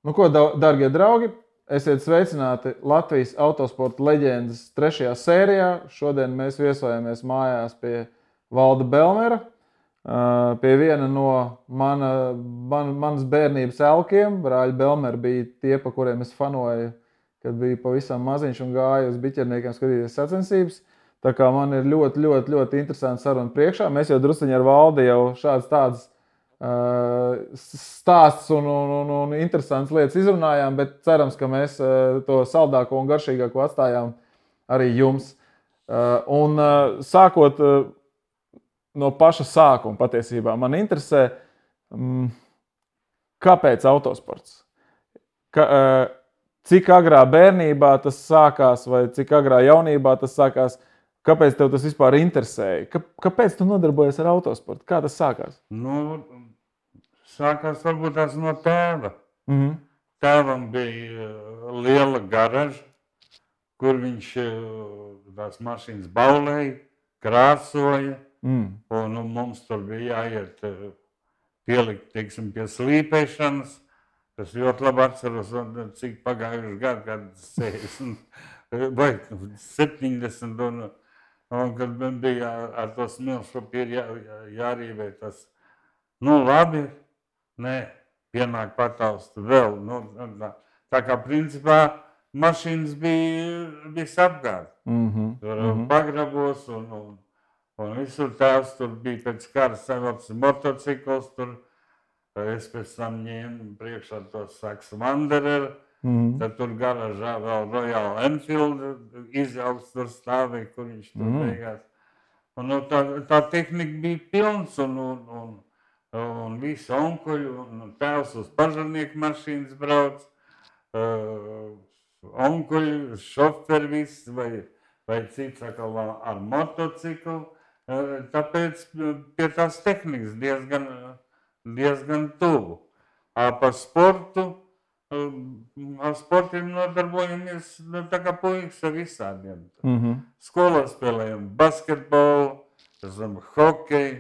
Nu ko, dargie draugi, esiet sveicināti Latvijas autosporta leģendas 3. sērijā. Šodien mēs viesojamies mājās pie Valda Belmera, pie viena no manas bērnības elkiem. Brāļi Belmeri bija tie, pa kuriem es fanoju, kad biju pavisam maziņš un gāju uz biķerniekiem skatīties sacensības. Tā kā man ir ļoti interesanti saruna priekšā. Mēs jau drusciņi ar Valdi jau šādas tādas stāsts un interesants lietas izrunājām, bet cerams, ka mēs to saldāko un garšīgāko atstājām arī jums. Un sākot no paša sākuma patiesībā, man interesē, kāpēc autosports? Cik agrā bērnībā tas sākās vai cik agrā jaunībā tas sākās? Kāpēc tev tas vispār interesēja? Kāpēc tu nodarbojies ar autosportu? Kā tas sākās? Sākās varbūt tās no tēva. Tēvam bija liela garaža, kur viņš tās mašīnas baulēja, krāsoja. Un mums tur bija jāiet pielikt, teiksim, pie slīpēšanas. Es ļoti labi atceros, cik pagājuši gadu, kad 60 vai 70. Un kad bija ar to smilšpapīru jārīvē tas, labi, pienāk pataust vēl. Tā kā principā mašīnas bija visapkārt. Tur pagrabos un visur tēvs tur bija pēc kara savilcis motocikls. Es pēc tam ņēmu priekšā tos Saxo Wanderer. Tad tur garažā vēl Royal Enfield izjauks tur stāvēja, kur viņš tur beigās. Un tā tehnika bija pilns un visi onkuļi un tēvs uz pažarnieku mašīnas brauc. Onkuļi, šoferi viss vai cits atkal ar motociklu. Tāpēc pie tās tehnikas diezgan tuvu. Par sportu. Ar sportiem nodarbojamies tā kā puikas ar visādiem. Skolā spēlējam basketbolu, hokeju.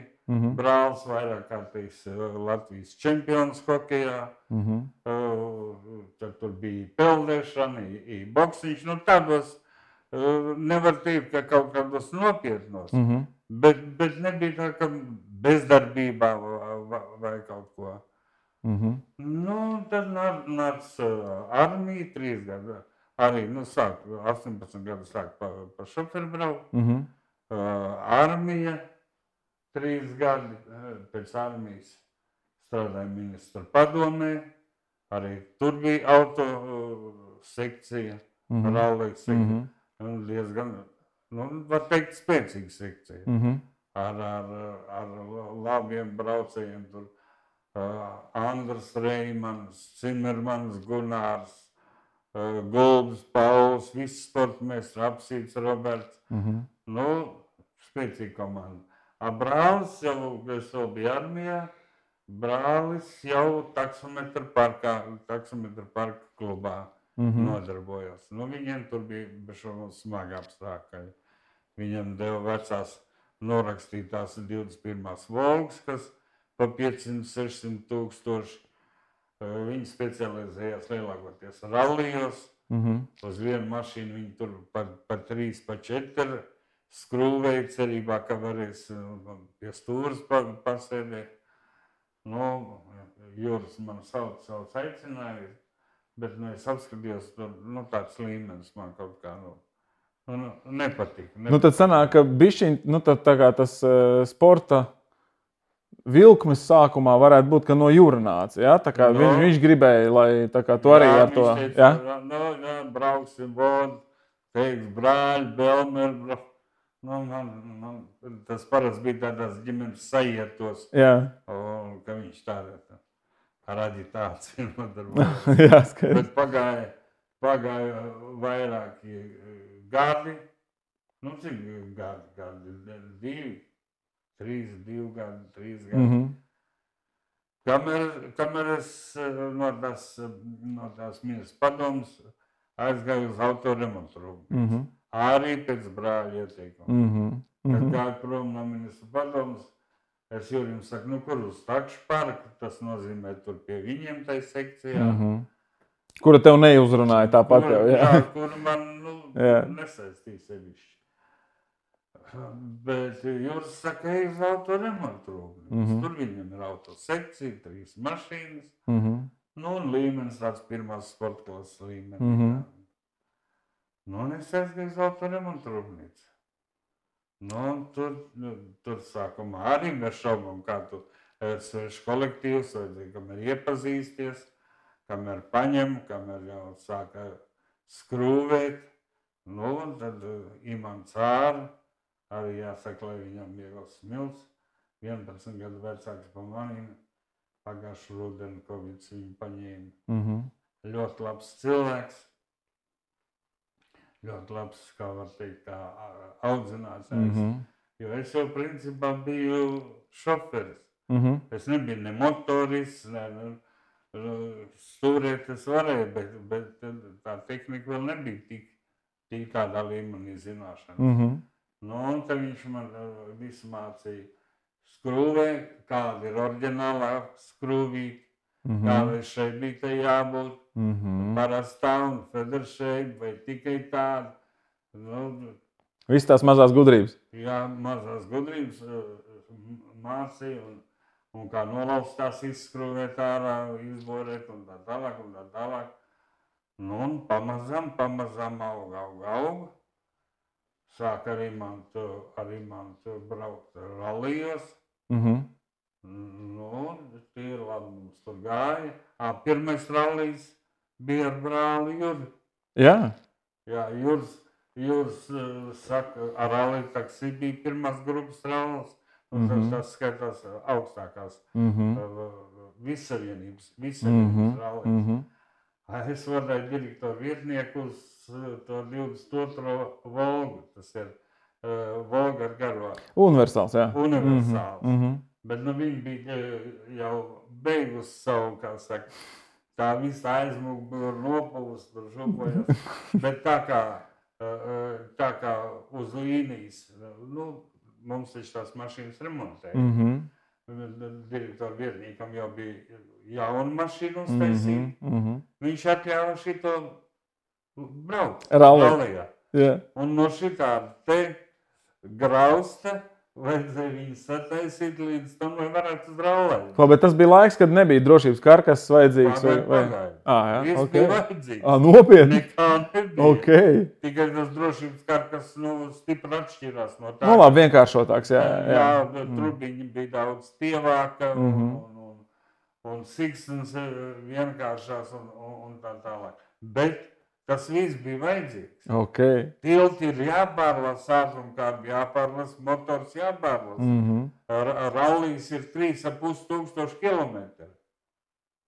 Brālis vairāk kārtīs Latvijas čempions hokejā. Tad tur bija peldēšana, boksiņš. Tādos nevar teikt, ka kaut kādos nopietnos. Bet nebija tā, ka bezdarbībā vai kaut ko. Tad nāca armija 3 gadu. Arī, sāk 18 gadu sāk pa šoferu braukt. Armija 3 gadi. Pēc armijas strādāja ministra padomē. Arī tur bija auto sekcija, rallija sekcija. Diezgan, var teikt, spēcīga sekcija. Ar labiem braucējiem tur. Andrs Reimans, Cimermans, Gunārs, Gulbis, Pauls, visi sportmēstri, Apsīts, Roberts. Spēcīga komanda. Brālis jau, es vēl biju armijā, brālis jau taksometru parka klubā nodarbojās. Viņiem tur bija smagi apstākļi. Viņiem deva vecās norakstītās 21. Volgas, kas pa 500-600 tūkstoši. Viņi specializējās lielākoties rallijos. Uz vienu mašīnu viņi tur pa 3, pa 4 skrūvēja cerībā, ka varēs pie stūras pasēdēt. Juris man sauc aicināja, bet es apskatījos, tāds līmenis man kaut kā nepatika. Tad sanāk, ka bišķiņ, tā kā tas sporta vilkmes sākumā varētu būt, ka no jūra nāca, ja? Tā kā viņš gribēja, lai tā kā tu arī ar to... Viņš teica, brauksim vodu, teiks brāļi, Belmeri. Tas parasti bija tādās ģimenes sajietos, ka viņš tādā ar aģitāciju nodarbojās. Bet pagāja vairāki gadi, cik gadi, 2 gadi, 3 gadi. Kamēr es no tās ministra padomas aizgāju uz autoremontu rūpnīcu. Arī pēc brāļa ieteikuma. Kad gāju prom no ministra padomas, es Jurim saku, kur uz takšu parku, tas nozīmē tur pie viņiem tai sekcijā. Kura tev neuzrunāja tāpat jau, jā? Jā, kura man nesaistīja sevišķi. Bet Juris saka, ej uz autoremontu rūpnīcu. Tur viņam ir autosekcija, 3 mašīnas. Nu, un līmenis tāds pirmās sporta klases līmenis. Nu, un es aizgāju uz autoremontu rūpnīcu. Nu, tur sākumā arī mēs šaubām, kā tu svešu kolektīvs, vajadzēja, kamēr iepazīsties, kamēr paņem, kamēr jau sāka skrūvēt. Nu, un tad Imants Āra, arī jāsaka, lai viņam viegls smilts, 11 gadu vecāks pa manīm, pagājušu rudeni Kovids viņu paņēma. Ļoti labs cilvēks, ļoti labs, kā var teikt, kā audzinātājs, jo es jau principā biju šoferis. Es nebiju ne motorists, ne stūrēt es varēju, bet tā tehnika vēl nebija tik tādā līmenī zināšana. Nu, un tad viņš man visu mācīja skrūvē, kāda ir oriģinālā skrūvīte, kāda šeit bija te jābūt, parastā un federšeit, vai tikai tāda. Nu, Viss tās mazās gudrības. Jā, mazās gudrības mācīja, un kā nolauzt tās izskrūvēt ārā, izborēt un tā tālāk. Nu, un pamazām auga. Sāk arī man braukt rallijos. Nu, tie ir labi, mums tur gāja. Pirmais rallijs bija ar brāli Juri. Jā? Jā, Juris saka, ar ralliju taksī bija pirmās grupas rallis. Un tas skaitās augstākās vissavienības rallis. Es varēju direktoru vietnieku uz to 22. Volgu. Tas ir Volga ar garvā. Universāls, jā. Universāls. Bet nu viņi bija jau beigusi savu, kā saka, tā visa aizmugura nopūst, tur župojas. Bet tā kā uz līnijas, nu, mums taču tās mašīnas remontēja. Direktoru vietniekam jau bija jauna mašīna uztaisīta. Viņš atļāva šito braukt rallijā. Un no šitāda te grausta vajadzēja viņu sataisīt līdz tam, lai varētu uz ralliju. Bet tas bija laiks, kad nebija drošības karkas vajadzīgs? Pagaid. Viss bija vajadzīgs. Nopietni? Nekā nebija. Tikai tas drošības karkas stipri atšķirās no tā. Nu labi, vienkāršotāks, jā. Jā, trubiņi bija daudz tievāka un siksnas vienkāršās un tā tālāk. Bet tas viss bija vajadzīgs. Tilti ir jāpārlas, ātrumkārbi jāpārlas, motors jāpārlas. Rallijs ir 3,5 kilometri.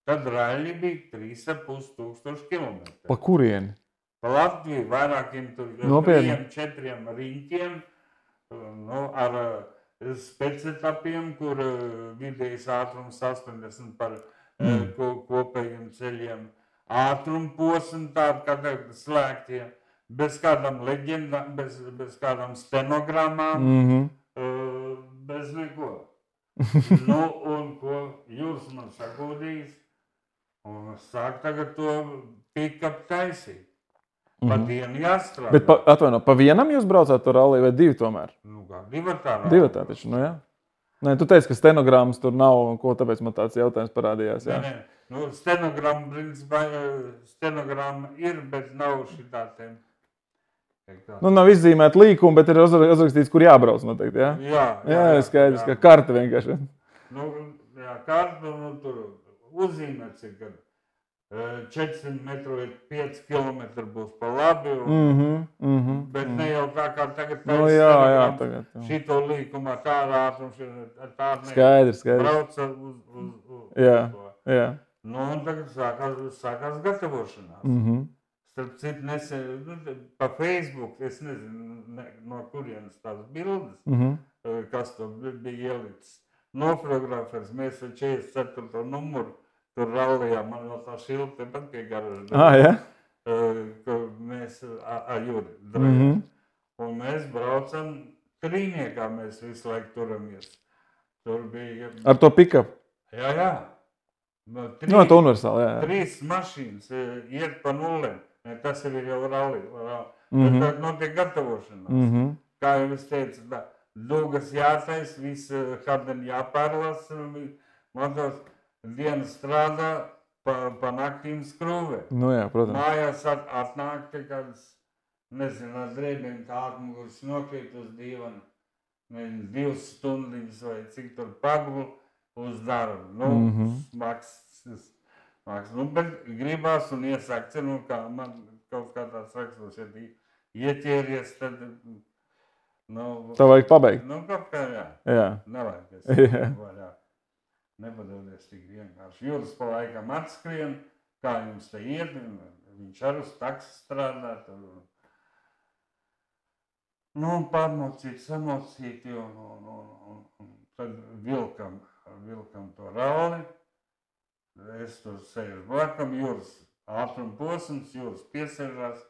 Tad raļi bija 3,5 kilometri. Pa kurieni? Pa Latviju vairākiem tur 3-4 riņķiem, ar specietapiem, kur vidējais ātrums 80 par kopējiem ceļiem. Ātrumposmi tādi, kā tagad slēgtie, bez kādām leģendām, bez kādām stenogrammām, bez neko. Nu, un ko Juris man sagūdījis, un sāk tagad to pick-up taisīt. Pa dienu jāstrādā. Bet, atvaino, pa vienam jūs braucāt to ralliju vai 2 tomēr? Nu kā, divatā rallija. Divatā taču, nu jā. Nē, tu teici, ka stenogrammas tur nav, ko tāpēc man tāds jautājums parādījās, jā. Nē. Nu, stenogramma, principā, stenogramma ir, bet nav šitā tiem. Nu, nav izzīmēta līkuma, bet ir uzrakstīts, kur jābrauc noteikti, jā? Jā, skaidrs, ka karta vienkārši. Nu, jā, karta, tur uzzīmēts ir, ka 400 metru ir 5 kilometri būs pa labi, bet ne jau tā kā tagad tagad. Šito līkumā tāda ātrums ir, tāda skaidrs. Brauca uz jā. Nu, un tagad sākās gatavošanās. Starp citu, nesen pa Facebook, es nezinu, no kurienes tās bildes, kas to bija ielicis. Nofotografēs, mēs ar 44. numuru tur rallijā, man vēl tā šilta tepat pie garaža. Ka mēs ar Juri drājām. Un mēs braucam trīniekā, mēs visu laiku turamies. Tur bija... Ar to pick-up? Jā. Tā universāli, jā. 3 mašīnas iet pa nullēm. Tas ir jau ralli. Tad notiek gatavošanās. Kā jau es teicu, dugas jātais, viss hardeni jāpārlas, motors dienas strādā, pa naktīm skrūvē. Jā, protams. Mājās atnāk te kādas, nezinu, ar drēbēm tā atmuguras nokrīt uz divana. 2 stundiņas vai cik tur pagulu uz darbu. Smags. Bet gribās un iesākts, kā man kaut kā tāds raksturs, ja ieķēries, tad, Tā vajag pabeigt. Kaut kā, Jā. Nevajag. Nepadodies tik vienkārši. Jūras pa laikam atskrien, kā jums te iet, viņš ar uz taksi strādā. Pārmocīt, samocīt, un tad vilkam to ralli. Es tur sēžu blakam, jūras ātrumposms, jūras piesēžās,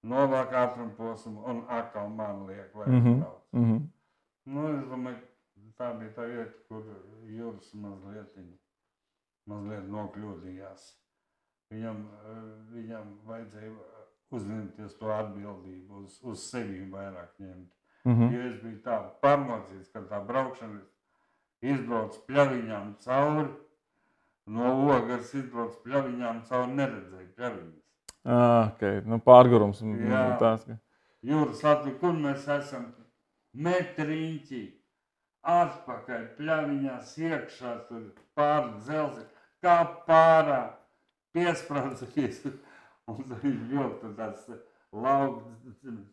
novāk ātrumposmu un atkal man liek, lai brauc. Es domāju, tā bija tā vieta, kur jūras mazliet nokļūdījās. Viņam vajadzēja uzņemties to atbildību, uz sevi vairāk ņemt. Jo es biju tā pārmocīts, ka tā braukšana izbrauc pļaviņām cauri, no Ogars izbrauc pļaviņām cauri, neredzēju pļaviņas. Okay. Pārgurums. Jūras Latvija, kur mēs esam? Metriņķi, atpakaļ, pļaviņās iekšā, tur pār dzelzi, kā pārā, piesprādzies. Un tad viņš ļoti tāds lauks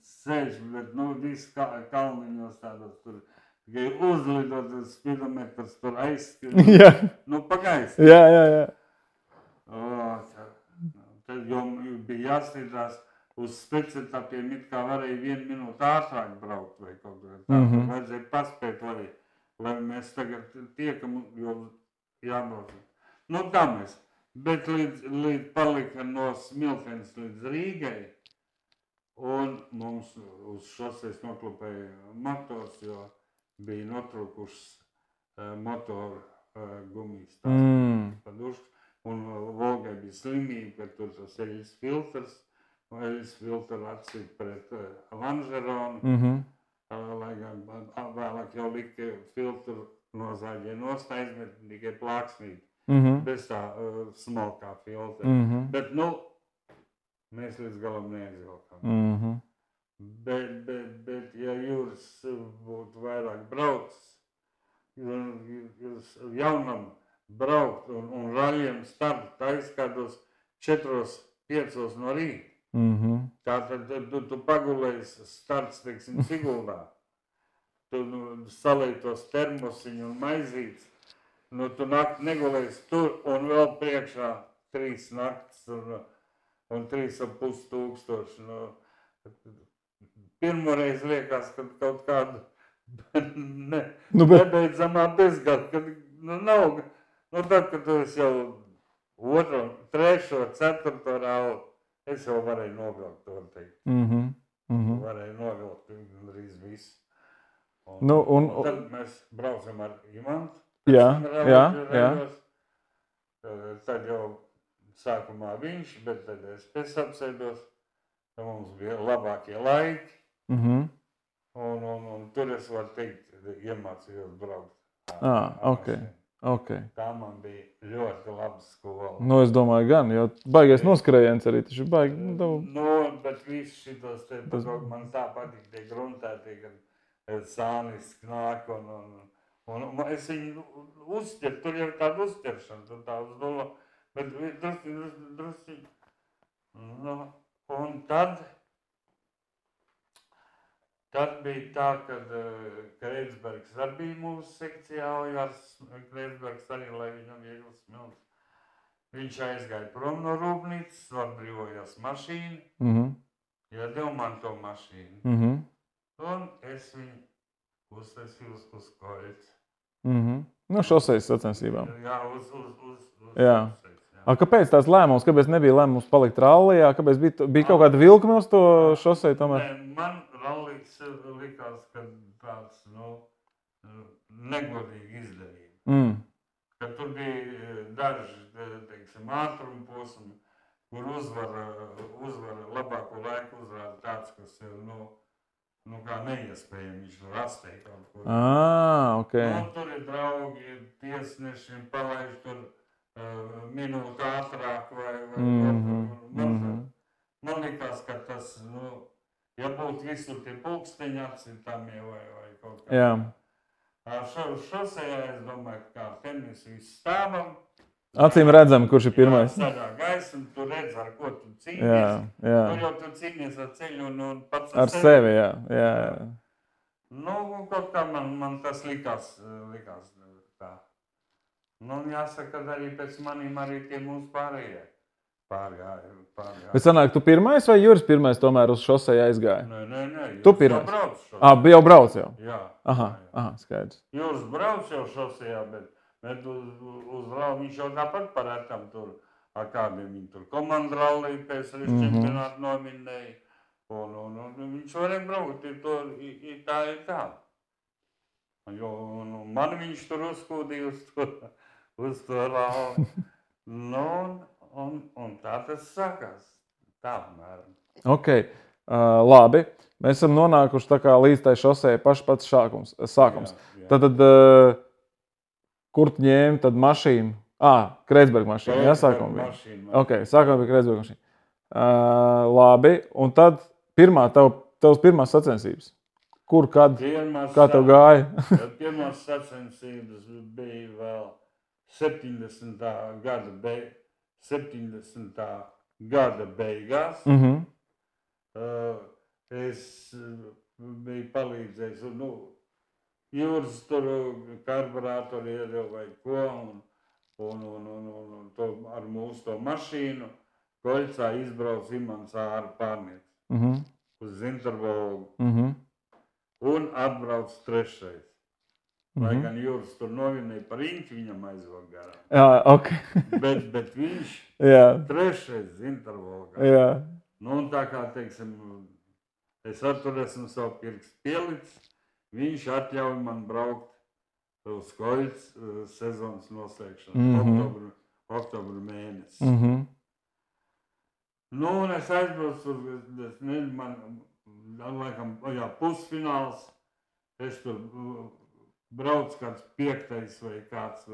sēž, bet viss kalniņos tādos tur. Tikai uzlidot uz spidometrs, tur aizskrien. Pagaisi. Jā. Tad jau bija jāstrīdās uz speciātapiem, it kā varēja 1 minūti ātrāk braukt vai kaut kā tā. Vajadzēja paspēt, lai mēs tagad tiekam, jo jābrauc. Tā mēs. Bet līdz palika no Smiltenes līdz Rīgai, un mums uz šoseis noklupēja motors, jo bija notrūkušas motoru gumijas padušas, un Volgai bija slimība, ka tur tas eļas filtrs, eļas filtru atcīt pret Lanžeronu, lai gan vēlāk jau lika filtru no zaļie nostājas, bet tikai plāksnīt. Bez tā smalkā filtra. Bet, mēs līdz galam neaizvilkām. Bet, ja jūras būtu vairāk braucis, jūs jaunam braukt un raļiem start aizkādos 4-5 no rīta. Tātad tu pagulējies starts, teiksim, Siguldā. Tu salēji tos termosiņu un maizītes. Tu nakti negulējies tur un vēl priekšā 3 naktis un 3,5 tūkstoši. Pirmoreiz liekas, ka kaut kādu nebeidzamā bezgada, kad nav. Tad, kad tu esi jau 2., 3., 4. rāli, es jau varēju novilkt to teikt. Varēju novilkt gandrīz visu. Tad mēs braucam ar Imantu. Jā. Tad jau sākumā viņš, bet tad es apsēdos. Mums bija labākie laiki. Un tur es varu teikt, iemācījos braukt. Tā man bija ļoti laba skola. Es domāju gan, jo baigais noskrējiens arī taču baigi. Bet viss šitos te, man tā patīk tie gruntētie, kad sānis knāk un es viņu uzķeru, tur jau tāda uzķeršana, tur tā uz nullo, bet drusci. Un tad bija tā, kad Kreitsbergs arī bija mūsu sekcijā, Ojārs Kreitsbergs arī, lai viņam ieglas smilts. Viņš aizgāja prom no rūpnīcas, atbrīvojās mašīnu, iedeva man to mašīnu. Un es viņu uztaisīju uz koļas. Šoseis sacensībām. Jā, uz šoseis. Kāpēc tās lēmums? Kāpēc nebija lēmums palikt rallijā? Kāpēc bija kaut kāda vilkme uz to šosei tomēr? Man rallijs likās, ka tāds, negodīgi izdarība. ka tur bija daži, teiksim, ātruma posmi, kur uzvar labāko laiku uzrāda tāds, kas ir, kā neiespējami, viņš var astēt kaut ko. Okay. Tur ir draugi, tiesneši, palaiž tur minūti ātrāk man likās, ka tas, ja būtu visur tie pulksteņi apcitāmie vai kaut kā. Jā. Šosejā es domāju, ka kā tenisu viss stāvam. Acīm redzam, kurš ir pirmais. Zaļā gaisa, un tu redz, ar ko tu cīnies. Jā. Tur jau tu cīnies ar ceļu un pats ar sevi. Jā. Kaut kā man tas likās tā. Jāsaka, ka arī pēc manīm arī tie mūsu pārējie. Pārgāja. Bet sanāk, tu pirmais vai Juris pirmais tomēr uz šosei aizgāja? Nē. Tu pirmais? Jau brauc jau? Jā. Aha, skaidrs. Juris brauc jau šosejā, bet uz ralli viņš jau tāpat parētam tur, ar kādiem viņi tur komandu ralli pēc čempionātu nominēja. Un viņš varēja braukt, tā ir tā. Jo man viņš tur uzkūdīja uz to ralli. Un tā tas sākās. Tā, apmēram. Ok, labi. Mēs esam nonākuši tā kā līdz tai šosei pats sākums. Jā. Tad kur tu ņēmi tad mašīnu? Kreitsberga mašīna, jā, sākumā bija. Ok, sākumā bija Kreitsberga mašīna. Labi, un tad tavas pirmās sacensības. Kur, kad, kā tev gāja? Pirmās sacensības bija vēl 70. gada beigās. Es biju palīdzējis, Juris tur karburātori iedeva vai ko, un to ar mūsu to mašīnu Koļcā izbrauc Imants Āra pārnieks uz Zintervolgu un atbrauc trešais. Lai gan Juris tur novinēja par Inķi, viņam aizvāk garām. Jā, ok. bet viņš trešais Zintervolgā. Jā. Un tā kā, teiksim, es ar tur esmu savu pirkstu pielicis, viņš atļauj man braukt uz Koļcu sezonas noslēgšanu, oktobru mēnesi. Un es aizbraucu tur, man laikam, pusfināls, es tur braucu kāds 5. vai kāds,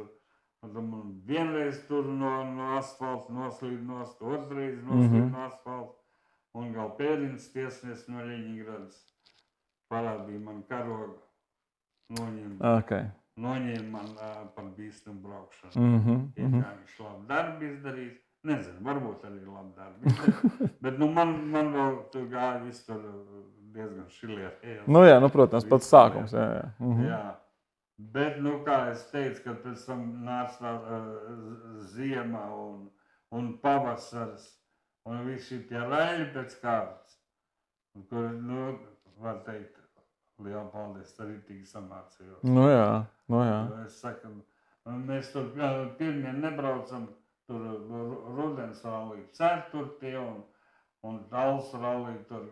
man vienreiz tur no asfalta noslīd nost, otrreiz noslīd no asfalta, un gal pēdienas tiesnieks no Ļeņigradas parādīja man karogu, noņēma man par bīstamu braukšanu. Kā viņš labu darbu izdarīs, nezinu, varbūt arī labu darbu izdarīs, bet man vēl tur gāja viss tur diezgan šilierējās. Protams, pats sākums. Jā. Bet, kā es teicu, kad pēc tam nāca ziema un pavasars un visi tie raļi pēc kārtas, kur, var teikt, liela paldies, arī tik samācījos. Jā. Es saku, mēs tur pirmien nebraucam, tur rudens rallī 4. un Tals rallī tur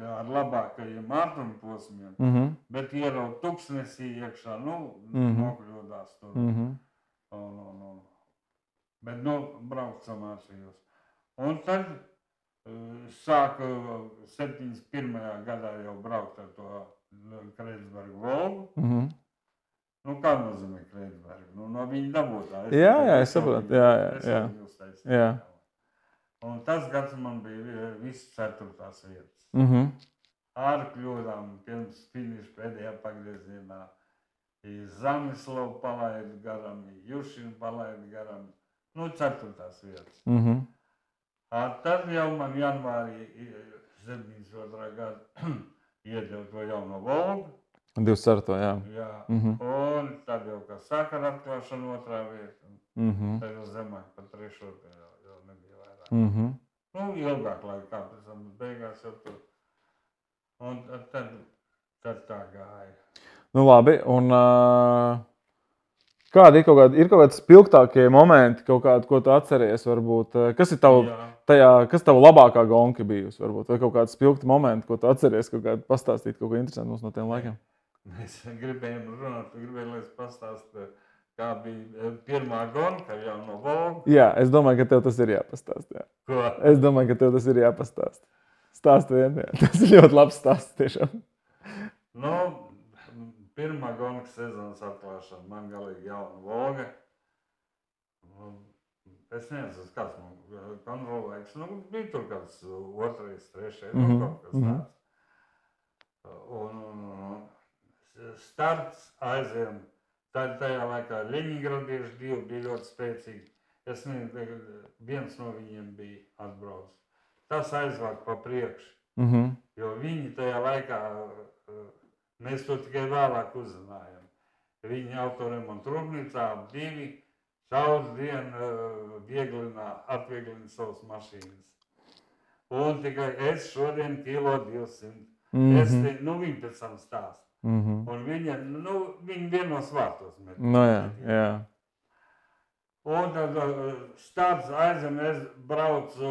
ar labākajiem ātruma posmiem, bet ieraut tuksnesī iekšā, nokļūdās tur. Bet, braukt samācījos. Un tad sāku 71. gadā jau braukt ar to Kreitsberga Volgu. Kā nozīmē Kreitsberga? No viņa dabūtā. Jā, es saprotu. Jā. Un tas gads man bija viss 4. vietas. Ar kļūdām pirms finiša pēdējā pagriezienā. Zamislavu palaidu garam, Jušinu palaidu garam. 4. vietas. Tad jau man janvārī 72. gada iedeva to jauno Volgu. 24. Jā. Un tad jau, kā saka ar atklāšanu 2. vieta. Tad jau zemāk par 3. jau nebija vairāk. Ilgāk laikā, pēc tam beigās jau tur. Un tad tā gāja. Labi, un kādi ir kaut kādi spilgtākie momenti, kaut kādi, ko tu atceries, varbūt? Kas ir tava labākā gonka bijusi, varbūt? Vai kaut kādi spilgti momenti, ko tu atceries, kaut kādi pastāstīt kaut ko interesantu mums no tiem laikiem? Mēs gribējām runāt, lai es pastāstu kā bija pirmā gonka jau no Volga. Jā, es domāju, ka tev tas ir jāpastāst. Jā. Ko? Es domāju, ka tev tas ir jāpastāst. Stāst vien, jā. Tas ir ļoti labs stāsts tiešām. Nu, pirmā gonka sezonas atklāšana, man galīgi jauna Volga. Es nezinu, kāds man kontrolēks. Nu, bija tur kāds otrais, trešais, nu, kaut kas tāds. Un starts aizvien. Tajā laikā Ļeņingradieši divi bija ļoti spēcīgi. Es nezinu, viens no viņiem bija atbraucis. Tas aizvāk pa priekšu. Jo viņi tajā laikā, mēs to tikai vēlāk uzzinājām. Viņi autoremontu rūpnīcā divi šaudz dienu atvieglina savas mašīnas. Un tikai es šodien kilo 200. Viņi pēc tam stāst. Un viņi vienos vārtos met. No jā. Un tad starts aizem, es braucu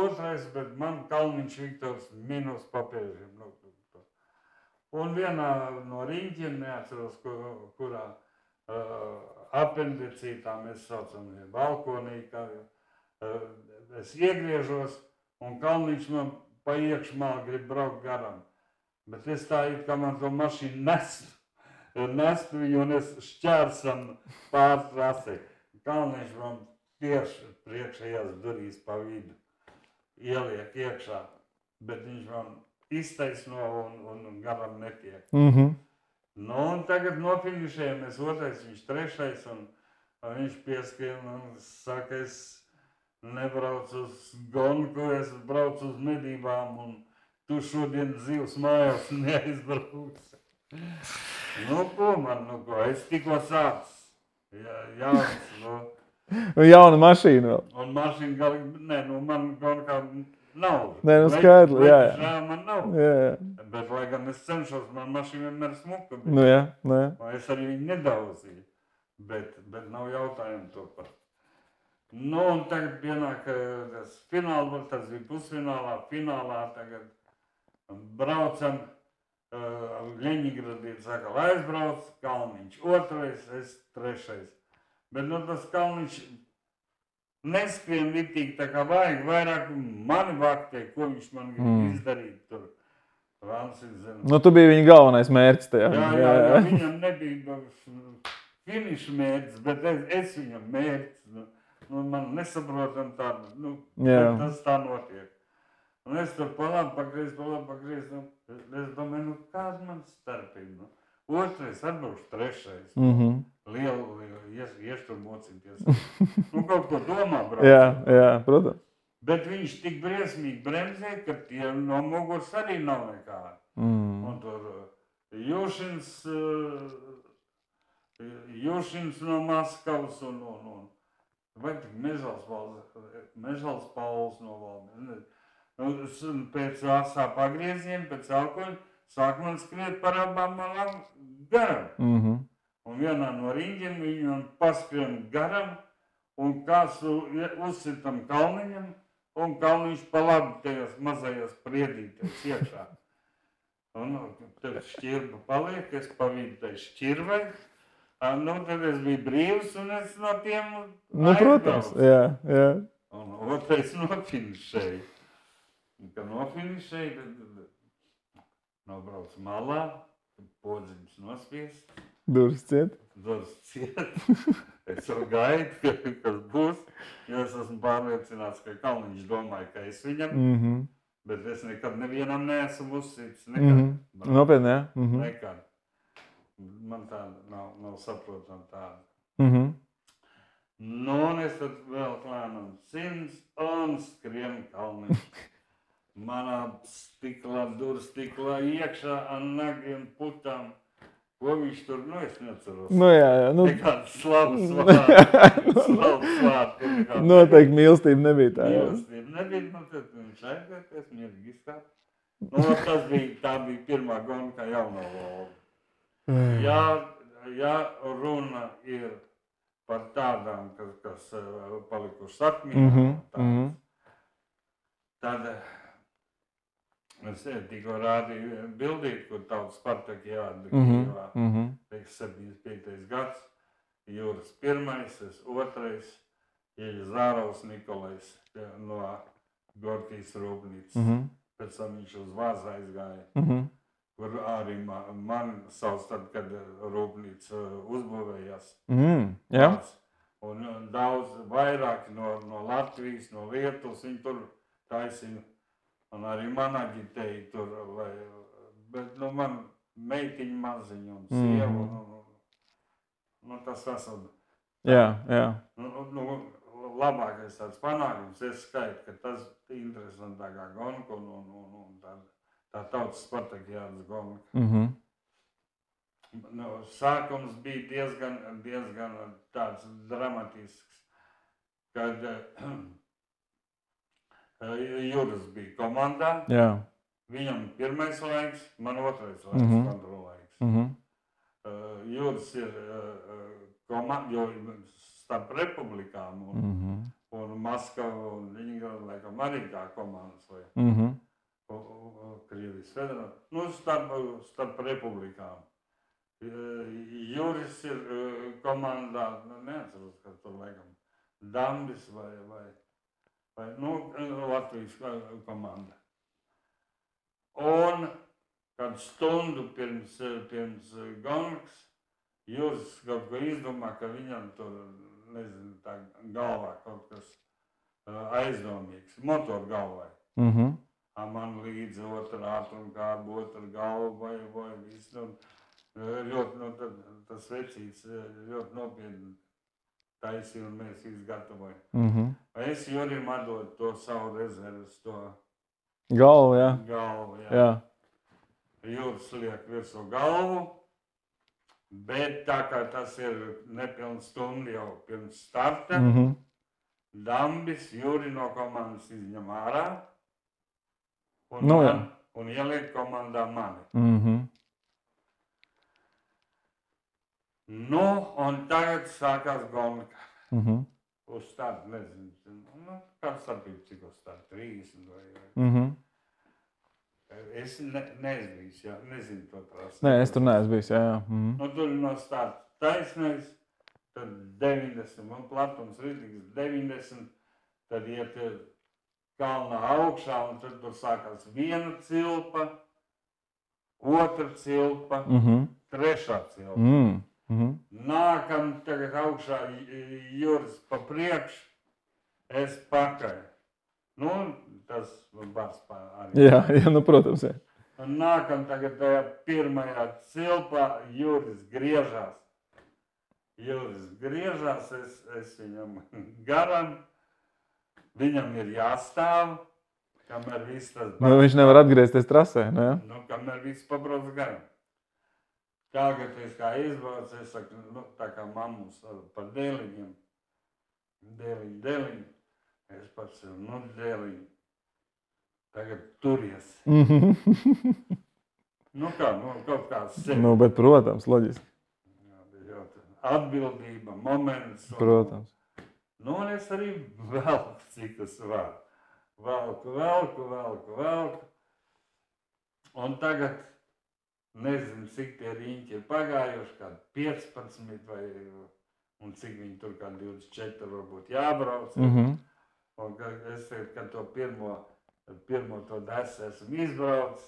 otrais, bet man Kalniņš Viktors minus papēžiem. Un vienā no riņķiem, neatceros, kurā apendicītā mēs saucam balkonī, kā es iegriežos, un Kalniņš man pa iekšmā grib braukt garam. Bet es tā it kā man to mašīnu nestu viņu un es šķērsam pār trasi. Kalniņš man tieši priekšējās durīs pa vidu ieliek iekšā, bet viņš man iztaisno un garam netiek. Nu, un tagad nofinišējamies otrais, viņš trešais, un viņš pieskrien un saka, es nebraucu uz gonku, es braucu uz medībām, un tu šodien zivs mājās neaizbrauks. Nu, ko man, es tikko sācis. Jauns, Jauna mašīna vēl. Un mašīna galīgi, man gonkā nav. Nē, skaidri, jā. Man nav. Jā. Bet, lai gan es cenšos, man mašīna vienmēr smuka. Nu jā. Es arī viņu nedauzīju. Bet nav jautājumu to par. Nu, un tagad pienāk tas fināls, tas bija pusfinālā, finālā tagad. Braucam, Ļeņingradieši saka, lai aizbrauc, Kalniņš otrais, es trešais. Bet tas Kalniņš neskrien vitīgi tā kā vajag, vairāk mani vaktē, ko viņš man grib izdarīt tur. Nu, tu biji viņa galvenais mērķis tajā. Jā, viņam nebija finiša mērķis, bet es viņam mērķis. Man nesaprotam tādu, tas tā notiek. Un es tur palāpu pagriezt, es domāju, kāda man starpība. Otrais atbrauks trešais. Lielu ieštur mocīties. Kaut ko domā brauc. Jā, protams. Bet viņš tik briesmīgi bremzē, ka tie no muguras arī nav nekā. Un tur Jušins no Maskavas un vai tik Mežals Pauls no Valmieras. Pēc asā pagrieziena, pēc alkoņa, sāk man skriet par abām malām garam. Un vienā no riņģiem viņam paskrien garam, un kāds uzsitam Kalniņam, un Kalniņš pa labi tajos mazajos priedīties iekšā. Un tad šķirba paliek, es pa vidu tai šķirvai. Tad es biju brīvs, un es no tiem aizbraucu. Protams, jā. Un otrais nofinišēja. Kad nofinišēja, nobrauc malā, podziņš nospiest. Durvis ciet. Es jau gaidu, kas būs, jo es esmu pārliecināts, ka Kalniņš domāja, ka es viņam, bet es nekad nevienam neesmu uzsīts. Nopietni, jā. Nekad. Man tāda nav saprotama tāda. Nu, un es tad vēl klēnam 100 un skrien Kalniņš. Manā durstiklā iekšā ar nagiem putām. Ko viņš tur, es neatceros. Jā. Nekāds slavas vārds. Noteikti mīlestība nebija tā. Mīlestība nebija, tad viņš aizvērties, mierīgi izskāt. Tā bija pirmā gonka jauno Volgu. Ja runa ir par tādām, kas palikušas atmiņā, tad es tikko rādīju bildīt, kur tautas partija Kijevā, 75. gads. Juris pirmais, es otrais, Zārovs Nikolais no Gorkijas rūpnīcas. Pēc tam viņš uz Vāzu aizgāja, kur arī man sauc tad, kad rūpnīca uzbūvējās. Un daudz vairāk no Latvijas, no Lietuvas, viņi tur taisīja. Un arī man aģitēja tur, bet man meitiņa maziņa un sieva, tas esam. Jā. Labākais tāds panākums, es skaitu, ka tas interesantākā gonka un tā tautas Spartakiādas gonka. Sākums bija diezgan tāds dramatisks, kad Juris bija komandā. Viņam pirmais laiks, man otrais laiks, kontrolaiks. Juris ir komanda, jo starp republikām un Maskavu un Ļeņingradu laikam arī tā komandas vai Krievijas federācija. Starp republikām. Juris ir komandā, neatceros, kas tur laikam, Dambis vai Latvijas komanda. Un kad stundu pirms gongas Juris kaut ko izdomā, ka viņam tur, nezinu, tā galvā kaut kas aizdomīgs, motoru galvai. Man līdzi otra ātrumkārba, otra galva vai viss. Ļoti, tas vecīts ļoti nopietni taisīja un mēs izgatavojam. Es Jurim atdodu to savu rezerves, to galvu, jā. Juris liek virsū galvu, bet tā kā tas ir nepilns stundu jau pirms starta, Dambis Juri no komandas izņem ārā un ieliek komandā mani. Un tagad sākās gonka. Uz startu, nezinu, kāds starpība, cik uz startu, 30 vai. Es neesmu bijis, nezinu to trasi. Nē, es tur neesmu bijis, jā. Tur no starta taisnais, tad 90, un platums rītīgs 90, tad iet kalnā augšā, un tad tur sākās viena cilpa, otra cilpa, trešā cilpa. Nākam tagad augšā Juris pa priekšu, es pakaļ. Tas bars arī. Jā, protams, jā. Nākam tagad tajā pirmajā cilpā, Juris griežās. Es viņam garam, viņam ir jāstāv, kamēr viss tas bars. Viņš nevar atgriezties trasē, ne? Kamēr viss pabrauc garam. Tagad es kā izbraucu, es saku, tā kā mammus par dēliņiem. Dēliņi. Es pats sev, dēliņi. Tagad turies. Kaut kā sevi. Bet, protams, loģiski. Atbildība, moments. Protams. Un es arī velku, cik es varu. Velku. Un tagad nezinu, cik tie riņķi ir pagājuši, kādi 15 vai, un cik viņi tur kā 24 varbūt jābrauc. Un es teicu, ka to pirmo to desu esmu izbraucis,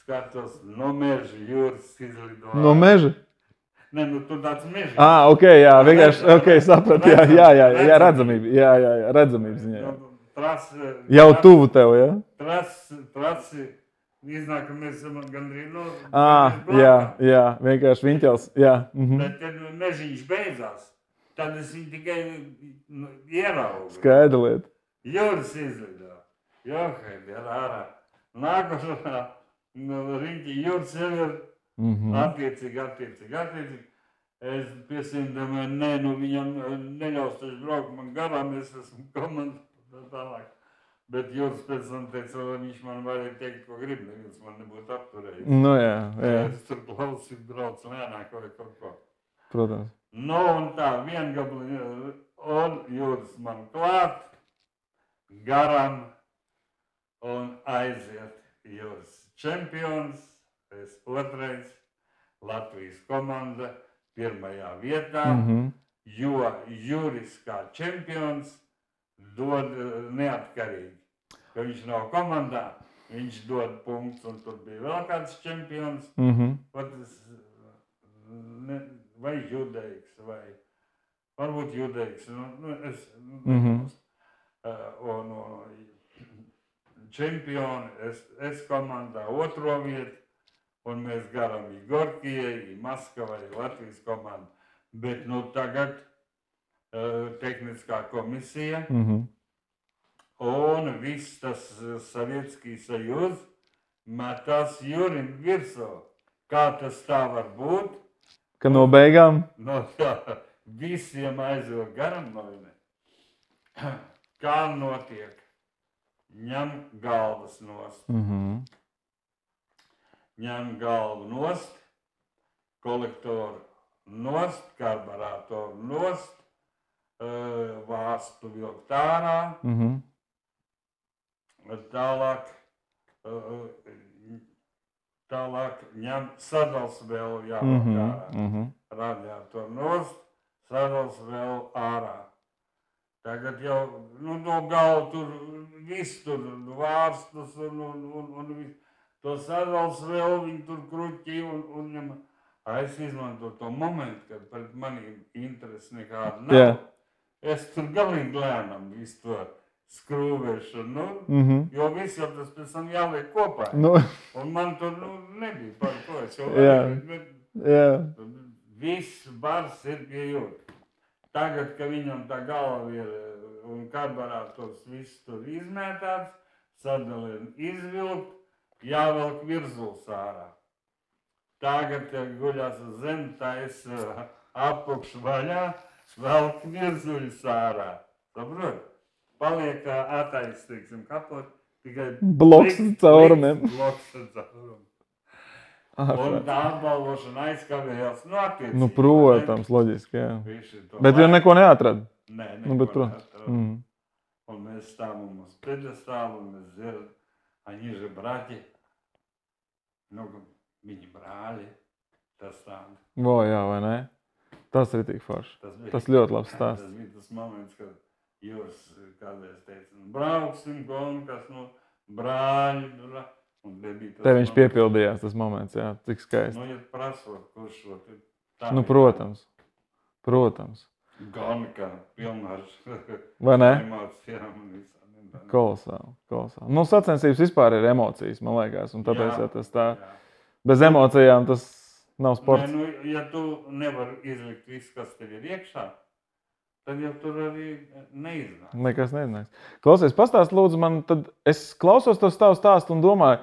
skatos no meža Juris izlido. No meža? Ne, tur tāds meža. Ok, jā, vienkārši, saprat, jā, redzamība, jā, redzamība ziņā. Jau tuvu tev, jā? Trasi. Iznāk, ka mēs esam gandrīz jā, vienkārši viņķels, jā. Bet, kad mežiņš beidzās, tad es viņu tikai ieraugu. Skaidra lieta. Juris izlido. Johaid, ir ārā. Nākošā riņķi Juris jau ir attiecīgi. Es piesīmdomāju, viņam neļaus taču braukt man garām, es esmu komandā tālāk. Bet Juris pēc tam teica, lai viņš man varēja teikt, ko grib, neviens man nebūtu apturējis. Jā. Es tur klausīt, braucu lēnāk vai kaut ko. Protams. Un tā, viengabli, un Juris man klāt, garam, un aiziet. Juris čempions, es otrais, Latvijas komanda, pirmajā vietā, jo Juris kā čempions dod neatkarīgi. Ka viņš nav komandā, viņš dod punktus, un tur bija vēl kāds čempions, vai Judeiks, vai varbūt Judeiks. Un čempioni, es komandā otro vietu, un mēs garam Gorkijai, Maskavai, Latvijas komandu. Bet tagad tehniskā komisija un viss tas Sovietskij Sajuz metās Jurim virsū. Kā tas tā var būt? Ka no beigām? Visiem aizvilk garam novine. Kā notiek? Ņem galvas nost. Ņem galvu nost, kolektoru nost, karburātoru nost, vāstu vilkt ārā, tālāk ņem sadals vēl jāvilkt ārā. Radiātoru nost, sadals vēl ārā. Tagad jau no galva tur viss tur vārstus un viss. To sadals vēl viņi tur kruķi un ņem. Es izmantoju to momentu, kad pret maniem interesi nekāda nav. Yeah. Es tur galīgi lēnam visu to skrūvēšanu, jo viss jau tas pēc tam jāliek kopā. Un man tur nebija par to. Es jau varēju, viss bars ir pie jūtas. Tagad, ka viņam tā galva ir un karburātors viss tur izmētāts, sadalien izvilkt, jāvelk virzuls ārā. Tagad, kad guļās uz zemi, tais apakš vaļā, velk virzuļus ārā. Saprot? Paliek atais, teiksim, kapot, tikai bloks caurumiem. Un tā apbalvošana aizkavējās attiecībā. Protams, loģiski, jā. Bet jau neko neatrada. Nē, neko neatrada. Un mēs stāvam uz pedestālu, un mēs dzirdam, они же братья. Viņi brāļi, tas tāda. Jā, vai ne? Tas ir tik forši. Tas ļoti labs stāsts. Tas bija tas moments, kad Jūras kādreiz teica, brauksim, kas brāļi. Te viņš piepildījās tas moments, jā, cik skaisti. Ja prasot, kurš šo tā. Protams. Gonika, pilnā vai ne? Emocijām un visām. Kolosāli. Sacensības vispār ir emocijas, man liekas, un tāpēc tas tā. Bez emocijām tas nav sports. Ja tu nevari izlikt visu, kas tev ir iekšā, tad jau tur arī neiznāks. Nekas neiznāks. Klausies, pastāst lūdzu man, tad es klausos tos tavu stāstu un domāju,